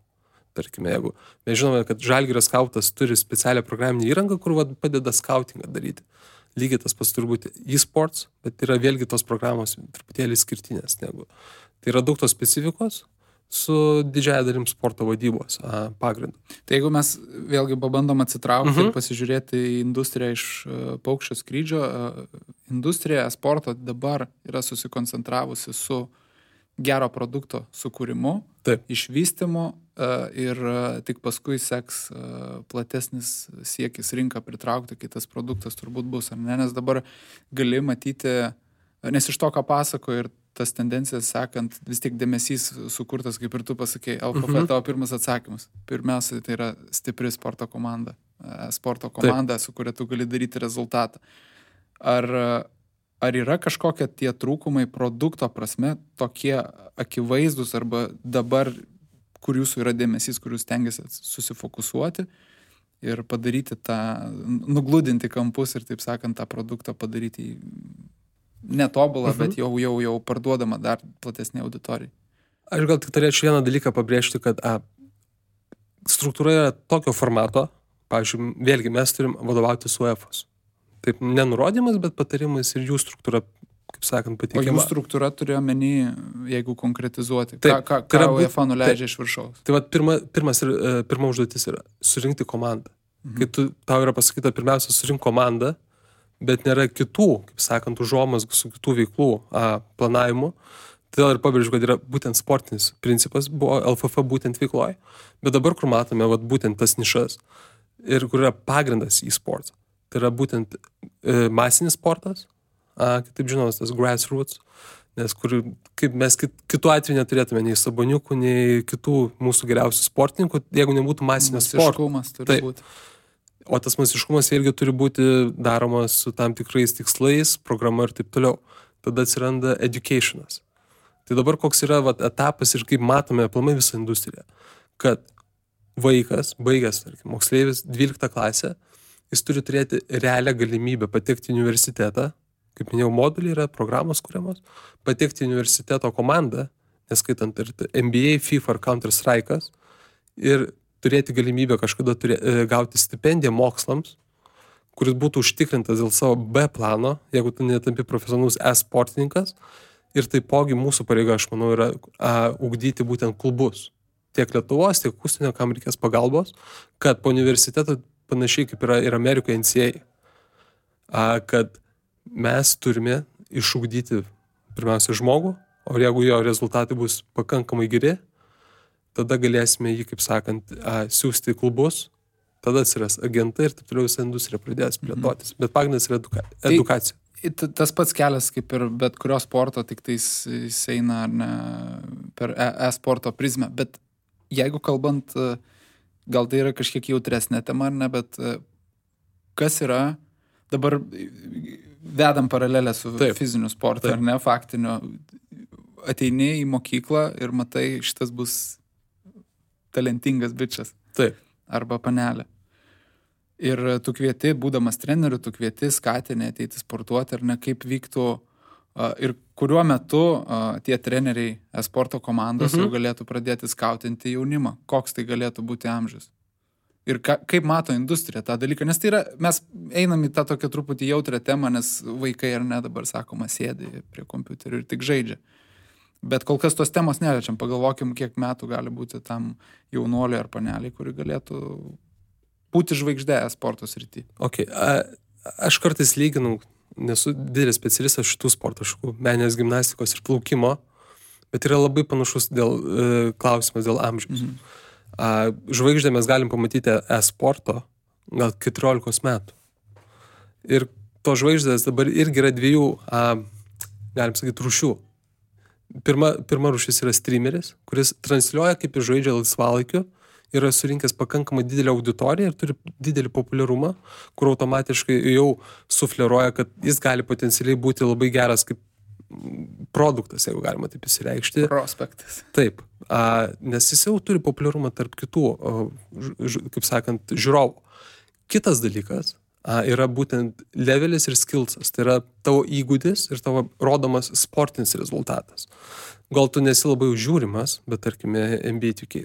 Tarkime, jeigu mes žinome, kad Žalgirio skautas turi specialią programinę įrangą, kur padeda skautingą daryti. Lygiai tas pats turbūt e-sports, bet yra vėlgi tos programos truputėlį skirtinės negu. Tai yra daug tos specifikos su didžiaja dalim sporto vadybos pagrindu. Tai jeigu mes vėlgi pabandom atsitraukti ir pasižiūrėti į industriją iš paukščio skrydžio, industrija sporto dabar yra susikoncentravusi su gero produkto sukūrimu, išvystymu ir tik paskui seks platesnis siekis rinką pritraukti, kai tas produktas turbūt bus, ar ne? Nes dabar gali matyti, nes iš to, ką pasako ir tas tendencijas sekant, vis tiek dėmesys sukurtas, kaip ir tu pasakei, LKF tavo pirmas atsakymas. Pirmiausia, tai yra stipri sporto komanda, su kuria tu gali daryti rezultatą. Ar yra kažkokie tie trūkumai produkto prasme tokie akivaizdus arba dabar, kur jūsų yra dėmesys, kur jūs stengiasi susifokusuoti ir padaryti tą, nugludinti kampus ir, taip sakant, tą produktą padaryti netobulą, bet jau parduodama dar platesnė auditorijai. Aš gal tik turėčiau vieną dalyką pabrėžti, kad struktūra yra tokio formato, pavyzdžiui, vėlgi mes turim vadovauti su UEFOS. Taip, nenurodymas, bet patarimas ir jų struktūra, kaip sakant, pateikiama. O jų struktūra turėjo menį, jeigu konkretizuoti, ką UEFA nuleidžia iš viršaus. Tai pirma užduotis yra surinkti komandą. Kai tau yra pasakyta pirmiausia surink komandą, bet nėra kitų, kaip sakant, užuomazgų su kitų veiklų planavimu, Todėl ir pabrėžiu, kad yra būtent sportinis principas, buvo LFF būtent veikloje. Bet dabar, kur matome būtent tas nišas ir kur yra pagrindas e-sports, tai yra būtent masinis sportas, kitaip žinomas tas grassroots, nes kaip mes kitų atveju neturėtume nei Saboniukų, nei kitų mūsų geriausių sportininkų, jeigu nebūtų masinio sporto. Masiškumas turi būti. O tas masiškumas irgi turi būti daromas su tam tikrais tikslais, programa ir taip toliau. Tada atsiranda educationas. Tai dabar koks yra etapas ir kaip matome aplamai visą industriją, kad vaikas, baigęs, tarkim, moksleivis 12 klasę, jis turi turėti realią galimybę patekti į universitetą, kaip minėjau, moduliai yra programos kuriamos, patekti į universiteto komandą, neskaitant ir NBA, FIFA ar Counter-Strike'as, ir turėti galimybę kažkada gauti stipendiją mokslams, kuris būtų užtikrintas dėl savo B plano, jeigu tu netampi profesionalus e-sportininkas. Ir taipogi mūsų pareiga, aš manau, yra ugdyti būtent klubus. Tiek Lietuvos, tiek užsienio, kam reikės pagalbos, kad po universiteto panašiai kaip yra ir Amerikoje NCAA, kad mes turime išugdyti pirmiausia žmogų, o jeigu jo rezultatai bus pakankamai geri, tada galėsime jį, kaip sakant, siūsti į klubus, tada atsiras agentai ir taip toliau visą industriją pradės plėtotis. Bet pagrindas yra edukacija. Tas pats kelias kaip ir bet kurio sporto, tik tai jis eina ar ne, per e-sporto prizmę. Bet jeigu kalbant, gal tai yra kažkiek jautresnė tema ar ne, bet kas yra, dabar vedam paralelę su fiziniu sportu, ar ne, faktiniu, ateini į mokyklą ir matai, šitas bus talentingas bičias. Taip. Arba panelė. Ir tu kvieti, būdamas treneriu, tu kvieti, skatini ateiti sportuoti, ar ne, kaip vyktų ir kuriuo metu tie treneriai sporto komandos jau galėtų pradėti skautinti jaunimą. Koks tai galėtų būti amžius. Ir kaip mato industrija tą dalyką. Nes tai yra, mes einam į tą tokią truputį jautrę temą, nes vaikai ar ne dabar, sakoma, sėdi prie kompiuterių ir tik žaidžia. Bet kol kas tos temos neliečiam. Pagalvokim, kiek metų gali būti tam jaunuoliui ar paneliai, kuri galėtų būti žvaigždė sporto srity. Okay. Aš kartais lyginu, nesu didelis specialistas šitų sporto šakų, meninės gimnastikos ir plaukimo, bet yra labai panašus klausimas dėl amžiaus. Žvaigždę mes galim pamatyti e-sporto gal 14 metų. Ir to žvaigždės dabar irgi yra dviejų, galim sakyti, rūšių. Pirma rūšis yra streameris, kuris transliuoja, kaip jis žaidžia laisvalaikiu, yra surinkęs pakankamai didelę auditoriją ir turi didelį populiarumą, kur automatiškai jau sufleruoja, kad jis gali potencialiai būti labai geras kaip produktas, jeigu galima taip įsireikšti. Prospektas. Taip, nes jis jau turi populiarumą tarp kitų, kaip sakant, žiūrovų. Kitas dalykas yra būtent levelis ir skillsas, tai yra tavo įgūdis ir tavo rodomas sportinis rezultatas. Gal tu nesi labai užžiūrimas, bet tarkime NBA 2K,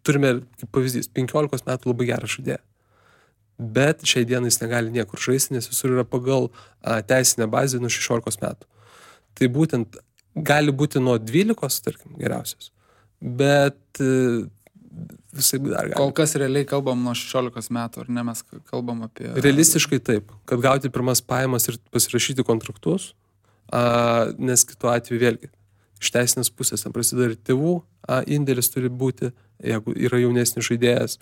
turime kaip pavyzdys 15 metų labai gerą žaidėją, bet šiai dienai jis negali niekur žaisti, nes visur yra pagal teisinę bazę nuo 16 metų. Tai būtent gali būti nuo 12, tarkim, geriausias, bet visai dar gali. Kol kas realiai kalbam nuo 16 metų, ar ne, mes kalbam apie... Realistiškai taip, kad gauti pirmas pajamas ir pasirašyti kontraktus, nes kitu atveju vėlgi, iš teisinės pusės ten prasideda ir tėvų indėlis turi būti, jeigu yra jaunesnis žaidėjas,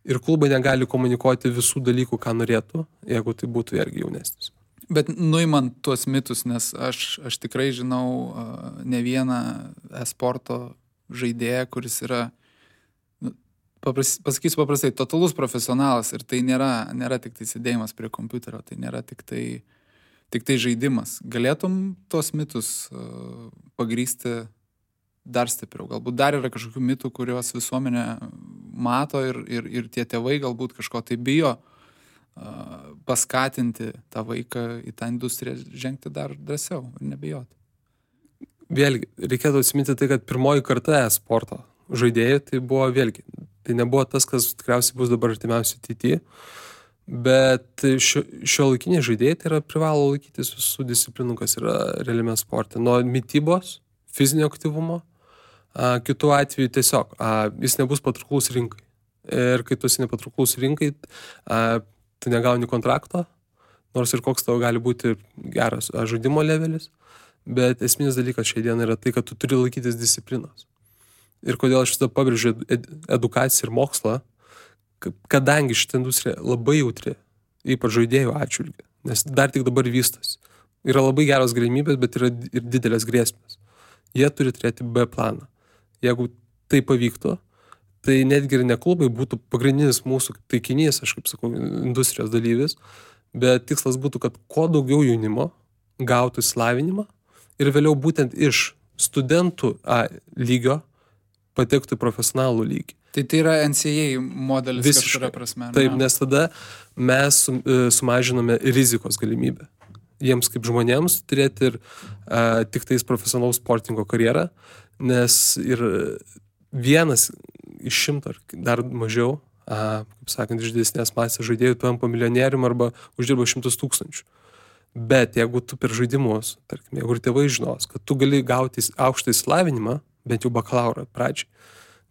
ir klubai negali komunikuoti visų dalykų, ką norėtų, jeigu tai būtų irgi jaunesnis. Bet nuimant tuos mitus, nes aš tikrai žinau ne vieną e-sporto žaidėją, kuris yra, pasakysiu paprastai, totalus profesionalas ir tai nėra tik tai sėdėjimas prie kompiuterio, tai nėra tik tai žaidimas. Galėtum tos mitus pagrįsti dar stipriau? Galbūt dar yra kažkokių mitų, kuriuos visuomenė mato ir tie tėvai galbūt kažko tai bijo paskatinti tą vaiką į tą industriją žengti dar drąsiau ir nebijoti. Vėlgi, reikėtų atsiminti tai, kad pirmoji karta e-sporto žaidėjai tai buvo vėlgi. Tai nebuvo tas, kas tikriausiai bus dabar artimiausiai ateityje, bet šiuolaikiniai žaidėjai tai yra privalo laikytis visų disciplinų, kas yra realiame sporte. Nuo mitybos, fizinio aktyvumo, kitų atveju tiesiog jis nebus patrauklus rinkai. Ir kai tu esi nepatrauklus rinkai, tu negauni kontrakto, nors ir koks tavo gali būti geras žaidimo levelis, bet esminis dalykas šiai dienai yra tai, kad tu turi laikytis disciplinos. Ir kodėl aš visada pabrėžiu edukaciją ir mokslą, kadangi šitą industriją labai jautri, ypač žaidėjų atžvilgiu, nes dar tik dabar vystosi. Yra labai geros galimybės, bet yra ir didelės grėsmės. Jie turi turėti B planą. Jeigu tai pavyktų, tai netgi ir ne klubai būtų pagrindinis mūsų taikinys, aš kaip sakau, industrijos dalyvis, bet tikslas būtų, kad kuo daugiau jaunimo gautų išsilavinimą ir vėliau būtent iš studentų lygio patektų į profesionalų lygį. Tai yra NCAA modelis kažkuria prasme. Taip, nes tada mes sumažiname rizikos galimybę. Jiems kaip žmonėms turėti ir tik tais profesionalaus sportingo karjerą, nes ir vienas iš 100 ar dar mažiau, kaip sakant, iš didesnės masės žaidėjų tampa milijonierium arba uždirba 100 000. Bet jeigu tu per žaidimus, tarkim, jeigu ir tėvai žinos, kad tu gali gauti aukštą išsilavinimą, bent jau bakalaurą pradžiai,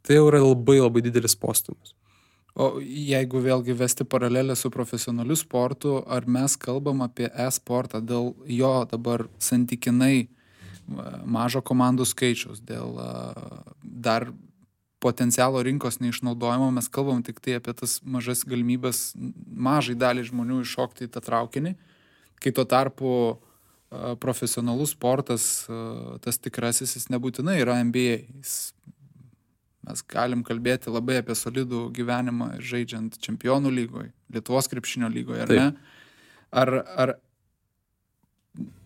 tai jau yra labai labai didelis postūmis. O jeigu vėlgi vesti paralelę su profesionaliu sportu, ar mes kalbam apie e-sportą dėl jo dabar santykinai mažo komandų skaičiaus, dėl dar potencialo rinkos neišnaudojimo, mes kalbam tik tai apie tas mažas galimybės mažai dalį žmonių iššokti į tą traukinį, kai tuo tarpu profesionalus sportas, tas tikrasis, jis nebūtinai yra NBA. Mes galim kalbėti labai apie solidų gyvenimą žaidžiant čempionų lygoje, Lietuvos krepšinio lygoje, ar ne? Ar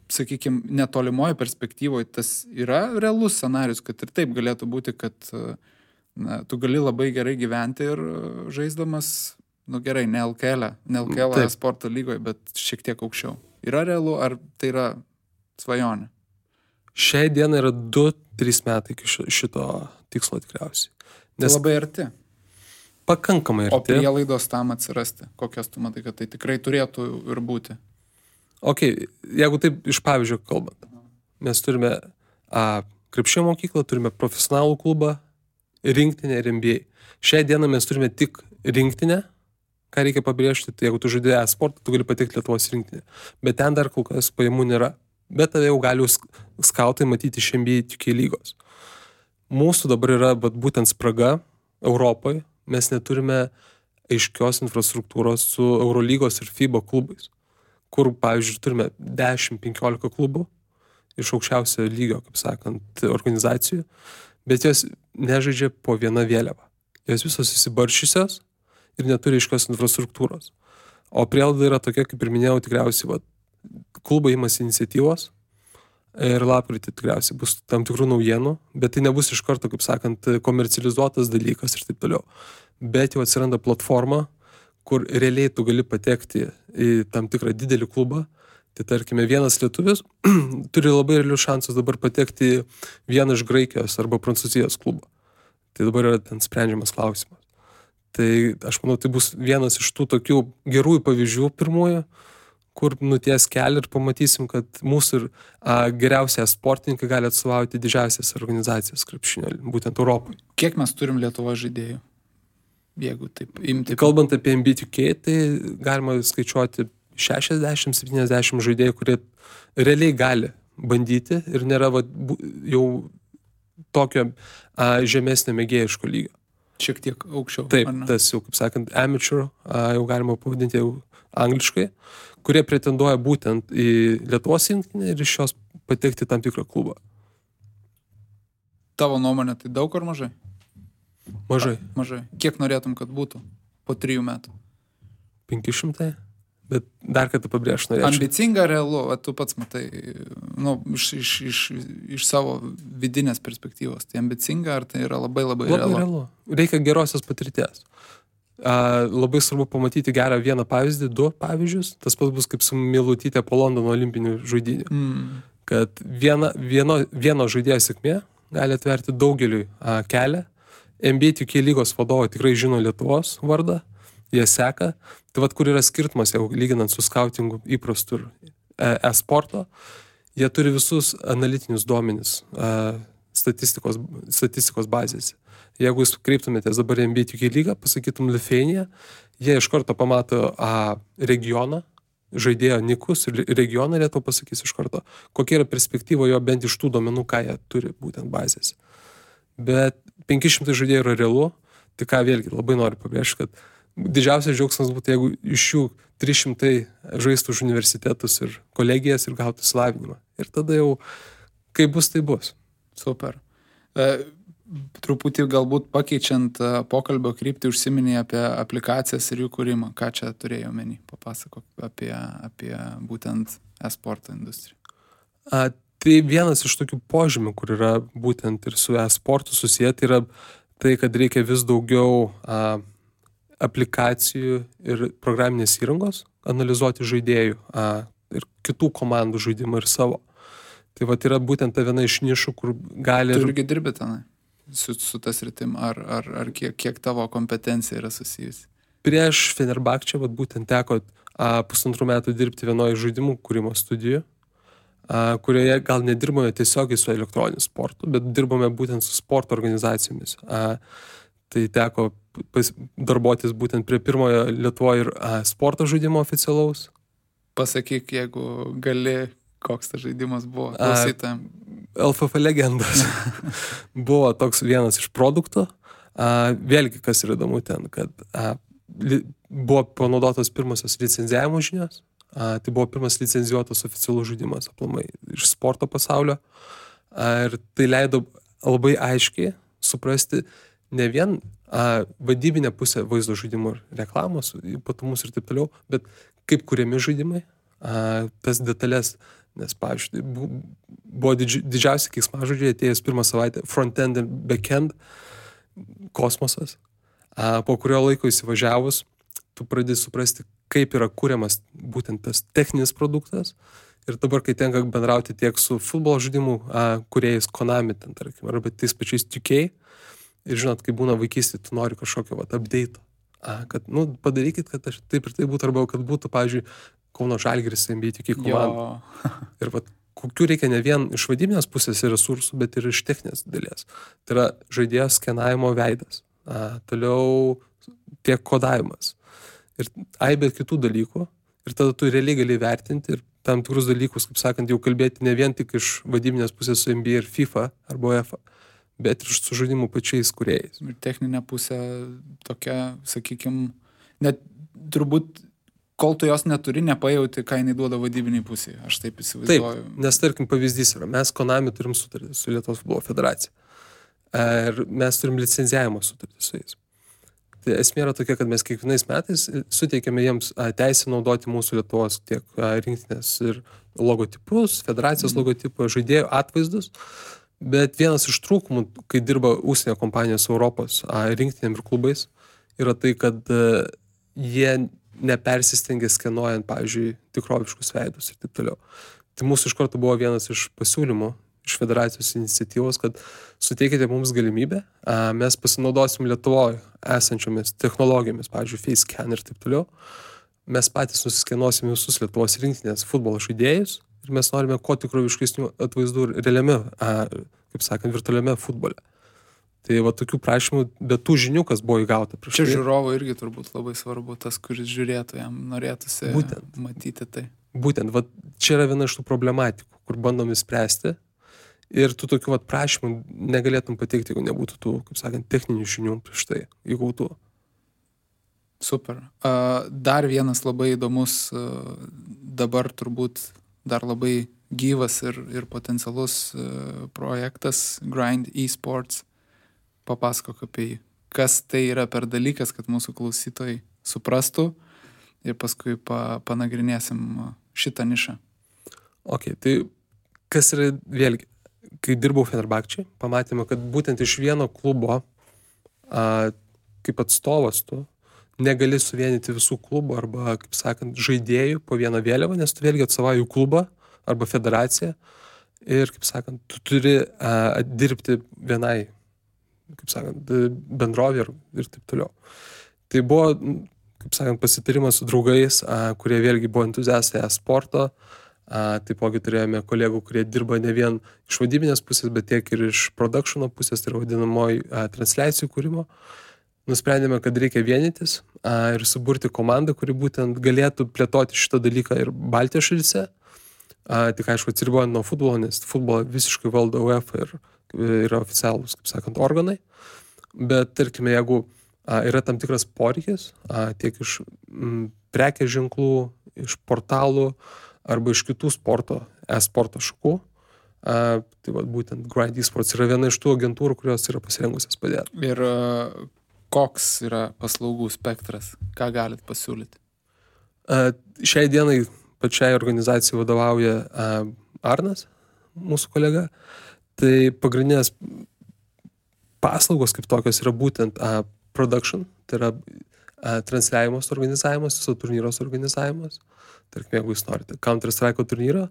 sakykime, netolimoje perspektyvoje tas yra realus scenarius, kad ir taip galėtų būti, kad tu gali labai gerai gyventi ir žaisdamas, gerai, ne LKL sporto lygoje, bet šiek tiek aukščiau. Yra realu, ar tai yra svajonė? Šiai dienai yra 2-3 metai iki šito tikslo tikriausiai. Nes tai labai arti. Pakankamai arti. O prielaidos tam atsirasti, kokias tu matai, kad tai tikrai turėtų ir būti? Jeigu taip iš pavyzdžio kalbant, mes turime krepšinio mokyklą, turime profesionalų klubą, rinktinę ir NBA. Šiai dieną mes turime tik rinktinę, ką reikia pabrėžti, tai jeigu tu žaidėjai sportą, tu gali patekti Lietuvos rinktinę. Bet ten dar kol kas pajamų nėra. Bet tave jau gali skautai matyti iš NBA 2K lygos. Mūsų dabar yra būtent spraga Europoje. Mes neturime aiškios infrastruktūros su Eurolygos ir FIBA klubais, kur, pavyzdžiui, turime 10-15 klubų iš aukščiausio lygio, kaip sakant, organizacijų, bet jos nežaidžia po vieną vėliavą. Jos visos įsibaršysios ir neturi aiškios infrastruktūros. O prielaida yra tokia, kaip ir minėjau, tikriausiai klubai imasi iniciatyvos ir lapkritį tikriausiai bus tam tikrų naujienų, bet tai nebus iš karto, kaip sakant, komercializuotas dalykas ir taip toliau. Bet jau atsiranda platforma, kur realiai tu gali patekti į tam tikrą didelį klubą. Tai tarkime, vienas lietuvis turi labai realius šansus dabar patekti į vieną iš Graikijos arba Prancūzijos klubą. Tai dabar yra ten sprendžiamas klausimas. Tai aš manau, tai bus vienas iš tų tokių gerųjų pavyzdžių pirmųjų, kur nuties kelią ir pamatysim, kad mūsų ir geriausiai sportininkai gali atstovauti didžiausias organizacijas krepšinio, būtent Europoje. Kiek mes turim Lietuvos žaidėjų? Jeigu taip imti. Kalbant apie NBA2K, tai galima skaičiuoti 60-70 žaidėjų, kurie realiai gali bandyti ir nėra jau tokio žemesnio mėgėjiško lygio. Šiek tiek aukščiau. Taip, tas jau, kaip sakant, amateur, jau galima pavadinti jau angliškai, kurie pretenduoja būtent į Lietuvos rinktinę ir iš jos patekti tam tikrą klubą. Tavo nuomonė, tai daug ar mažai? Mažai. Kiek norėtum, kad būtų po 3 metų? 500, bet dar kartą pabrėžti norėčiau. Ambicinga, realu, tu pats matai, iš savo vidinės perspektyvos. Tai ambicinga, ar tai yra labai realu? Reikia gerosios patirties. Labai svarbu pamatyti gerą vieną pavyzdį, 2 pavyzdžius. Tas pats bus kaip su Milutytė po Londono olimpinių žaidynių. Kad vieno žaidėjo sėkmė gali atverti daugeliui kelią. NBA 2K lygos vadovai tikrai žino Lietuvos vardą, jie seka. Tai kur yra skirtumas, jau lyginant su skautingu įprastu e-sporto, jie turi visus analitinius duomenis statistikos bazėse. Jeigu jūs kreiptumėtės dabar NBA 2K lygą, pasakytum Lithuania, jie iš karto pamato regioną, žaidėjo nikus ir regioną Lietuvą pasakys iš karto, kokia yra perspektyva jo bent iš tų duomenų, ką jie turi būtent bazėse. Bet 500 žaidėjų yra realu, tai ką vėlgi labai noriu pabrėžti, kad didžiausias džiaugsmas būtų, jeigu iš jų 300 žaistų už universitetus ir kolegijas ir gautų išsilavinimą. Ir tada jau, kai bus, tai bus. Super. Truputį galbūt pakeičiant pokalbio kryptį užsiminė apie aplikacijas ir jų kūrimą. Ką čia turėjau omeny? Papasakok apie būtent e-sporto industriją. Tai vienas iš tokių požymių, kur yra būtent ir su e-sportu susiję, tai yra tai, kad reikia vis daugiau aplikacijų ir programinės įrangos analizuoti žaidėjų ir kitų komandų žaidimą ir savo. Tai vat yra būtent ta viena iš nišų, kur gali... Tu irgi dirbi tenai su tas rytim, ar kiek tavo kompetencija yra susijusi? Prieš Fenerbahčę vat būtent teko 1,5 metų dirbti vienoje žaidimų kūrimo studijoje, kurioje gal nedirbome tiesiogiai su elektroniniu sportu, bet dirbome būtent su sporto organizacijomis. Tai teko darbuotis būtent prie pirmojo Lietuvoje ir sporto žaidimo oficialaus. Pasakyk, jeigu gali, koks tas žaidimas buvo klausytojams. LFF legendas. Buvo toks vienas iš produktų. Vėlgi, kas yra įdomu ten, kad buvo panaudotos pirmosios licenzijavimo žinios. Tai buvo pirmas licenzijuotas oficialus žaidimas aplamai iš sporto pasaulio. Ir tai leido labai aiškiai suprasti ne vien vadybinę pusę vaizdo žaidimų ir reklamos, ypatumus ir taip toliau, bet kaip kuriami žaidimai, tas detalės, nes, pavyzdžiui, buvo didžiausi keiksmažodžiai atėjęs pirmą savaitę front-end ir back-end kosmosas. Po kurio laiko įsivažiavus, tu pradedi suprasti, kaip yra kuriamas būtent tas techninis produktas. Ir dabar, kai tenka bendrauti tiek su futbolo žaidimų kūrėjais Konami, ten, tarkim, arba tais pačiais 2K, ir žinot, kai būna vaikystė, tu nori kažkokio update, kad, padarykit, kad aš taip ir taip būtų, arba kad būtų, pavyzdžiui, Kauno Žalgiris NBA 2K komanda. Ir kokių reikia ne vien iš vadybinės pusės ir resursų, bet ir iš techninės dalies. Tai yra žaidėjo skenavimo veidas, toliau tiek kodavimas ir aibė kitų dalykų. Ir tada tu realiai gali vertinti ir tam tikrus dalykus, kaip sakant, jau kalbėti ne vien tik iš vadybinės pusės su NBA ir FIFA arba UEFA, bet ir su žaidimų pačiais kūrėjais. Ir techninė pusė tokia, sakykime, net turbūt, kol tu jos neturi, nepajauti, ką jinai duoda vadybiniai pusėje. Aš taip įsivaizduoju. Taip, nes tarkim pavyzdys yra, mes Konami turim sutartį su Lietuvos futbolo federacija. Ir mes turim licenzijavimo sutartį su jais. Tai esmė yra tokia, kad mes kiekvienais metais suteikiame jiems teisę naudoti mūsų Lietuvos tiek rinktinės ir logotipus, federacijos logotipų, žaidėjų atvaizdus. Bet vienas iš trūkumų, kai dirba užsienio kompanijos Europos rinktinėm ir klubais, yra tai, kad jie nepersistengia skenuojant, pavyzdžiui, tikroviškus veidus ir taip toliau. Tai mūsų iš karto buvo vienas iš pasiūlymų iš federacijos iniciatyvos, kad suteikite mums galimybę, mes pasinaudosim Lietuvoje esančiomis technologijomis, pavyzdžiui, FaceScan ir taip toliau. Mes patys nusiskenuosim visus Lietuvos rinktinės futbolo žaidėjus ir mes norime kuo tikroviškesnių atvaizdų realiame, kaip sakant, virtualiame futbole. Tai va tokių prašymų, bet tų žinių, kas buvo įgauta prieš tai. Čia žiūrovo irgi turbūt labai svarbu, tas, kuris žiūrėtų, jam norėtųsi matyti tai. Būtent, va čia yra viena iš tų problematikų, kur bandom įspręsti ir tų tokių prašymų negalėtum pateikti, jeigu nebūtų tų, kaip sakant, techninių žinių prieš tai įgautų. Super. Dar vienas labai įdomus, dabar turbūt dar labai gyvas ir potencialus projektas Grind eSports. Papasakok apie jį. Kas tai yra per dalykas, kad mūsų klausytojai suprastų ir paskui panagrinėsim šitą nišą. Ok, tai kas yra vėlgi, kai dirbau Fenerbahčei, pamatėme, kad būtent iš vieno klubo kaip atstovas tu negali suvienyti visų klubų arba, kaip sakant, žaidėjų po vieną vėliavą, nes tu vėlgi atstovauji klubą arba federaciją ir, kaip sakant, tu turi dirbti vienai, kaip sakant, bendrovė ir taip toliau. Tai buvo, kaip sakant, pasitarimas su draugais, kurie vėlgi buvo entuziastai sporto. Taipogi turėjome kolegų, kurie dirba ne vien iš vadybinės pusės, bet tiek ir iš produkšino pusės, tai yra vadinamoji transliacijų kūrimo. nusprendėme, kad reikia vienytis ir suburti komandą, kuri būtent galėtų plėtoti šitą dalyką ir Baltijos šalyse. Tik aišku, atsiribojant nuo futbolo, nes futbolą visiškai valdo UEFA ir yra oficialūs, kaip sakant, organai. Bet, tarkime, jeigu yra tam tikras poreikis, tiek iš prekės ženklų, iš portalų arba iš kitų e-sporto šakų, tai va, būtent Grind Esports yra viena iš tų agentūrų, kurios yra pasirengusios padėti. Ir koks yra paslaugų spektras? Ką galit pasiūlyti? Šiai dienai pačiai organizacijai vadovauja Arnas, mūsų kolega. Tai pagrindinės paslaugos kaip tokios yra būtent production, tai yra transliavimas organizavimas, viso turnyros organizavimas. Tarkim, jeigu jūs norite Counter-Strike turnyrą,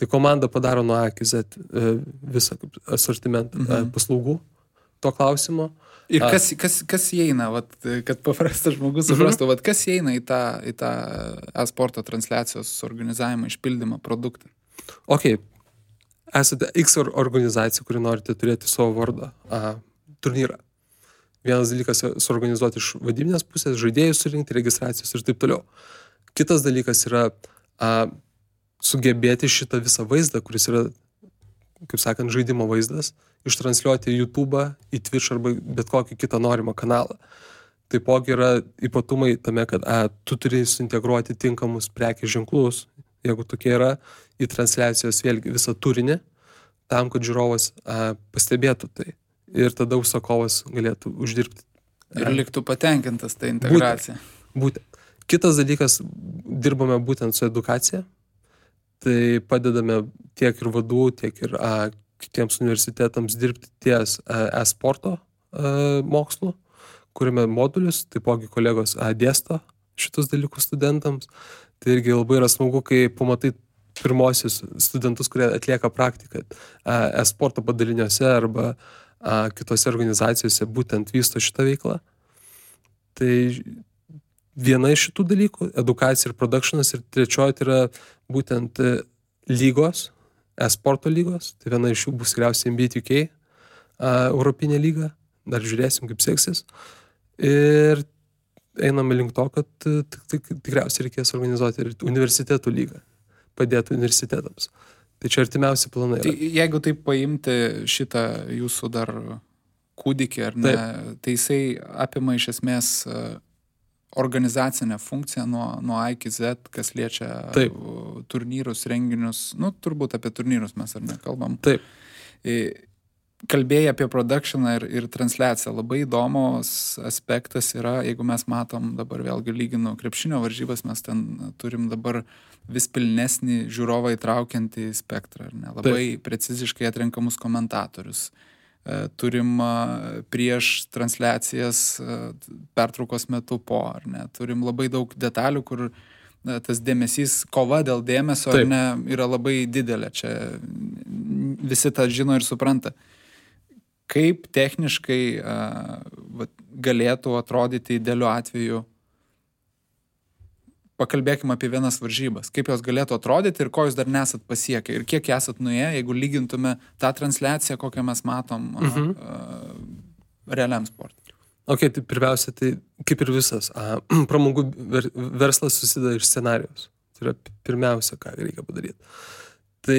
tai komanda padaro nuo A iki Z visą asortimentą paslaugų to klausimo. Ir kas įeina, vat, kad paprastas žmogus suprastų, vat, kas įeina į tą e-sporto transliacijos organizavimą, išpildymą, produktą? Ok, esate X organizacija, kuri norite turėti savo vardą turnyrą. Vienas dalykas suorganizuoti iš vadybinės pusės, žaidėjus surinkti, registracijos ir taip toliau. Kitas dalykas yra sugebėti šitą visą vaizdą, kuris yra, kaip sakant, žaidimo vaizdas, ištransliuoti į YouTube, į Twitch arba bet kokį kitą norimą kanalą. Taipogi yra ypatumai tame, kad tu turi suintegruoti tinkamus prekės ženklus, jeigu tokie yra, į transliacijos vėlgi visą turinį, tam, kad žiūrovas pastebėtų tai. Ir tada užsakovas galėtų uždirbti. Ir liktų patenkintas tą integraciją. Būtent. Kitas dalykas, dirbame būtent su edukacija. Tai padedame tiek ir vadų, tiek ir kitiems universitetams dirbti ties e-sporto mokslu, kuriame modulius, taipogi kolegos dėsto šitus dalykus studentams. Tai irgi labai yra smagu, kai pamatai pirmosius studentus, kurie atlieka praktiką e-sporto padaliniuose arba kitose organizacijose būtent vysto šitą veiklą. Tai viena iš šitų dalykų, edukacija ir productionas, ir trečioji tai yra būtent lygos, e-sporto lygos, tai viena iš jų bus tikriausiai NBA2K, Europinė lyga, dar žiūrėsim, kaip seksis. Ir einame link to, kad tikriausiai reikės organizuoti ir universitetų lygą, padėti universitetams. Tai čia artimiausi planai yra. Tai jeigu taip paimti šitą jūsų dar kūdikį, ar ne, tai jisai apima iš esmės organizacinę funkciją nuo A iki Z, kas liečia turnyrus, renginius, turbūt apie turnyrus mes ar nekalbam. Taip. Kalbėjai apie productioną ir transliaciją. Labai įdomus aspektas yra, jeigu mes matom dabar vėlgi lyginu krepšinio varžybas, mes ten turim dabar vis pilnesnį žiūrovą įtraukiantį spektrą, ar ne? Labai preciziškai atrenkamus komentatorius. Turim prieš transliacijas pertraukos metu po, ar ne? Turim labai daug detalių, kur tas dėmesys, kova dėl dėmesio, ar ne, yra labai didelė. Čia visi tą žino ir supranta. Kaip techniškai galėtų atrodyti idealiu atveju? Pakalbėkime apie vienas varžybas. Kaip jos galėtų atrodyti ir ko jūs dar nesat pasiekę? Ir kiek esat nuėję, jeigu lygintume tą transliaciją, kokią mes matom realiam sportui? Ok, tai pirmiausia, tai kaip ir visas, pramogų verslas susideda iš scenarijos. Tai yra pirmiausia, ką reikia padaryti. Tai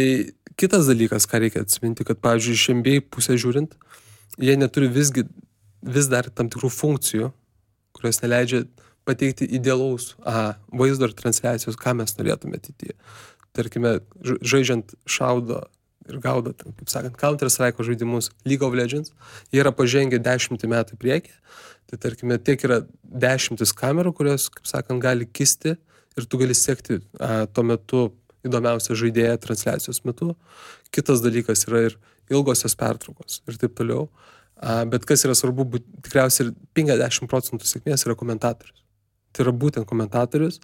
kitas dalykas, ką reikia atsiminti, kad, pavyzdžiui, iš NBA pusę žiūrint, jie neturi vis dar tam tikrų funkcijų, kurios neleidžia pateikti idealaus vaizdo ir transliacijos, ką mes norėtume ateityje. Tarkime, žaidžiant šaudo ir gaudo, kaip sakant, Counter-Strike žaidimus League of Legends, jie yra pažengę 10 metų priekį. Tai tarkime, tiek yra 10 kamerų, kurios, kaip sakant, gali kisti ir tu gali sekti tuo metu įdomiausią žaidėją transliacijos metu. Kitas dalykas yra ir ilgosios pertraukos ir taip toliau. Bet kas yra svarbu, tikriausiai 50% sėkmės yra komentatorius. Tai yra būtent komentatorius.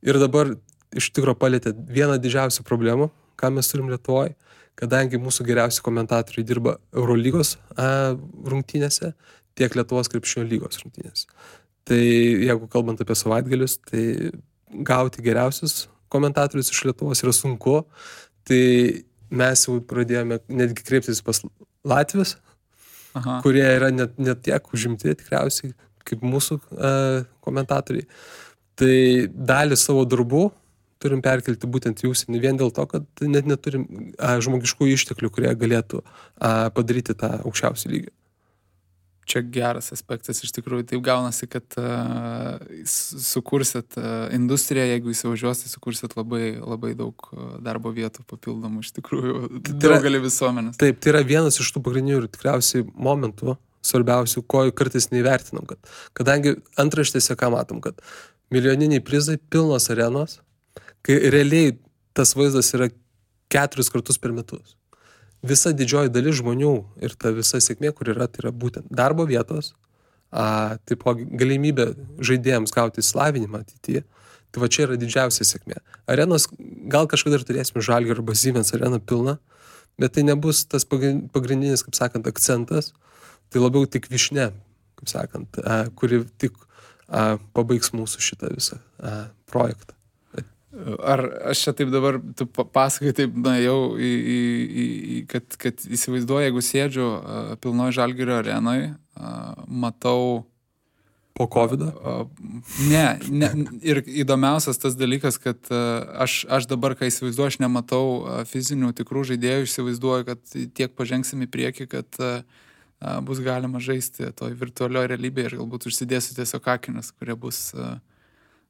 Ir dabar iš tikro palietė vieną didžiausių problemų, ką mes turim Lietuvoje, kadangi mūsų geriausi komentatoriai dirba Eurolygos rungtynėse, tiek Lietuvos krepšinio lygos rungtynėse. Tai jeigu kalbant apie savaitgalius, tai gauti geriausius komentatorius iš Lietuvos yra sunku. Tai mes jau pradėjome netgi kreiptis pas Latvius, kurie yra net tiek užimti tikriausiai, kaip mūsų komentatoriai. Tai dalį savo darbų turim perkelti būtent į užsienį vien dėl to, kad net neturim žmogiškų išteklių, kurie galėtų padaryti tą aukščiausią lygį. Čia geras aspektas, iš tikrųjų taip gaunasi, kad sukursit industriją, jeigu įsivažiuosit, sukursit labai, labai daug darbo vietų papildomų, iš tikrųjų, daugelį visuomenės. Taip, tai yra vienas iš tų pagrindinių ir tikriausiai momentų, svarbiausių, ko kartais neįvertinam, kadangi antraštėse ką matom, kad milijoniniai prizai, pilnos arenos, kai realiai tas vaizdas yra 4 kartus per metus. Visa didžioji dalis žmonių ir ta visa sėkmė, kur yra, tai yra būtent darbo vietos, taipogi galimybė žaidėjams gauti įsilavinimą ateityje. Tai va čia yra didžiausia sėkmė. Arenos, gal kažkada ir turėsime Žalgirio arba Siemens areną pilną, bet tai nebus tas pagrindinis, kaip sakant, akcentas, tai labiau tik višne, kaip sakant, kuri tik pabaigs mūsų šitą visą projektą. Ar aš čia taip dabar, tu pasakai taip, jau, kad įsivaizduoju, jeigu sėdžiu pilnoj Žalgirio arenoj, matau... Po COVID-o? Ne, ir įdomiausias tas dalykas, kad aš dabar, kai įsivaizduoju, aš nematau fizinių tikrų žaidėjų, įsivaizduoju, kad tiek pažengsim į priekį, kad bus galima žaisti toj virtualioje realybėje ir galbūt užsidėsiu tiesiog akinius, kurie bus...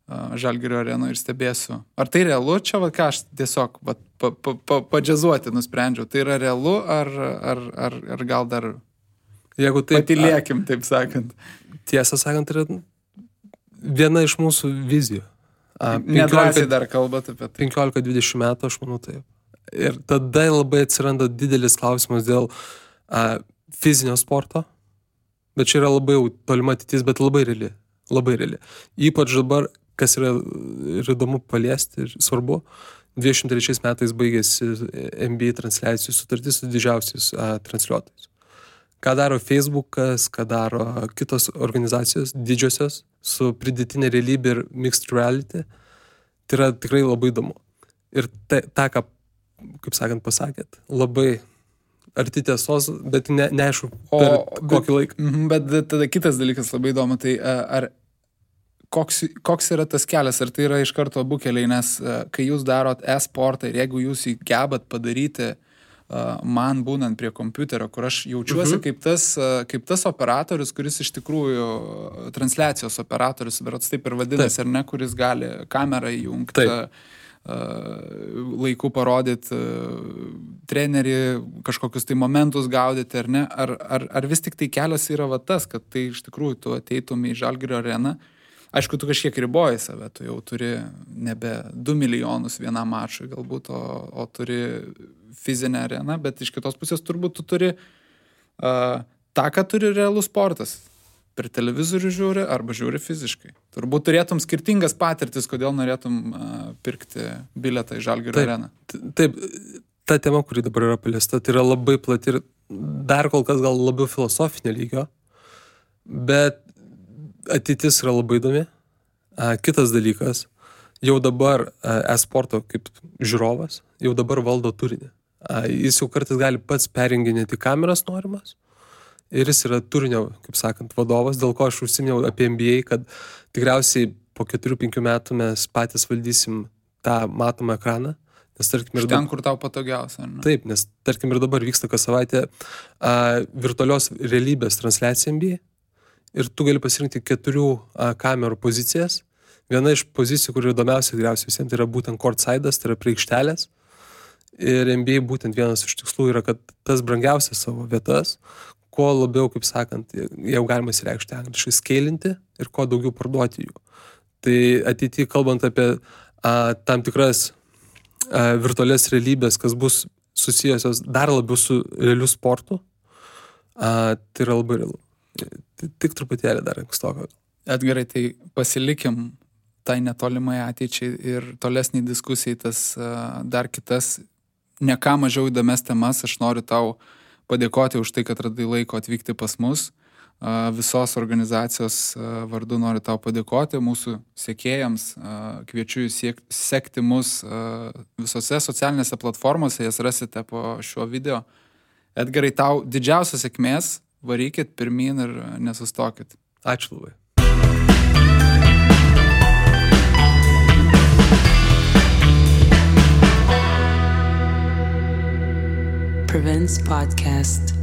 Žalgirio arenoje ir stebėsiu. Ar tai realu? Čia, ką aš tiesiog padžiazuoti nusprendžiau. Tai yra realu, ar gal dar patylėkim, taip sakant? Tiesą sakant, yra viena iš mūsų vizijų. Nedrąsiai dar kalbat apie tai. 15-20 metų, aš manau taip. Ir tada labai atsiranda didelis klausimas dėl fizinio sporto, bet čia yra labai tolima ateitis, bet labai reali. Labai reali. Ypač dabar, kas yra ir įdomu paliesti ir svarbu, 23 metais baigėsi NBA transliacijų sutartis su didžiausiais transliuotojais. Ką daro Facebookas, ką daro kitos organizacijos didžiosios su pridėtinė realybė ir mixed reality, tai yra tikrai labai įdomu. Ir tą, ką, kaip sakant, pasakėt, labai arti tiesos, bet neaišku per kokį laiką. Bet tada kitas dalykas labai įdomu, tai koks yra tas kelias, ar tai yra iš karto abu keliai, nes kai jūs darot e-sportą ir jeigu jūs jį gebat padaryti man būnant prie kompiuterio, kur aš jaučiuosi kaip tas operatorius, kuris iš tikrųjų transliacijos operatorius, berods taip ir vadinasi, ar ne, kuris gali kamerą įjungti, laiku parodyti trenerį, kažkokius tai momentus gaudyti, ar ne, ar vis tik tai kelias yra va tas, kad tai iš tikrųjų tu ateitum į Žalgirio areną. Aišku, tu kažkiek riboji save, tu jau turi nebe 2 milijonus vienam mačui galbūt, o turi fizinę areną, bet iš kitos pusės turbūt tu turi tą, ką turi realus sportas. Per televizorių žiūri arba žiūri fiziškai. Turbūt turėtum skirtingas patirtis, kodėl norėtum pirkti bilietą į Žalgirio areną. Taip, ta tema, kuri dabar yra paliesta, tai yra labai plati ir dar kol kas gal labiau filosofinio lygio, bet ateitis yra labai įdomi. Kitas dalykas, jau dabar e-sporto kaip žiūrovas, jau dabar valdo turinį. Jis jau kartais gali pats perjunginėti kameras norimas ir jis yra turinio, kaip sakant, vadovas, dėl ko aš užsiminiau apie NBA, kad tikriausiai po 4-5 metų mes patys valdysim tą matomą ekraną. Nes, tarkim, iš ten, kur tau patogiausia. Ne? Taip, nes tarkim ir dabar vyksta kas savaitę virtualios realybės transliacija NBA. Ir tu gali pasirinkti 4 kamerų pozicijas. Viena iš pozicijų, kur įdomiausia tikriausiai visiems, tai yra būtent courtside'as, tai yra prie aikštelės. Ir NBA būtent vienas iš tikslų yra, kad tas brangiausias savo vietas, kuo labiau, kaip sakant, jau galima įsireikšti angliškai, skeilinti ir kuo daugiau parduoti jų. Tai ateityje, kalbant apie tam tikras virtualias realybės, kas bus susijusios dar labiau su realiu sportu, tai yra labai realu. Tik truputėlį dar ankstoka. Edgarai, tai pasilikim tai netolimai ateičiai ir tolesniai diskusijai tas dar kitas, ne ką mažiau įdomias temas. Aš noriu tau padėkoti už tai, kad radai laiko atvykti pas mus. Visos organizacijos vardu noriu tau padėkoti, mūsų sekėjams. Kviečiu jūs sekti mus visose socialinėse platformose, jas rasite po šiuo video. Edgarai, tau didžiausios sėkmės. Varykit pirmyn ir nesustokit. Ačiū labai. Prevents Podcast.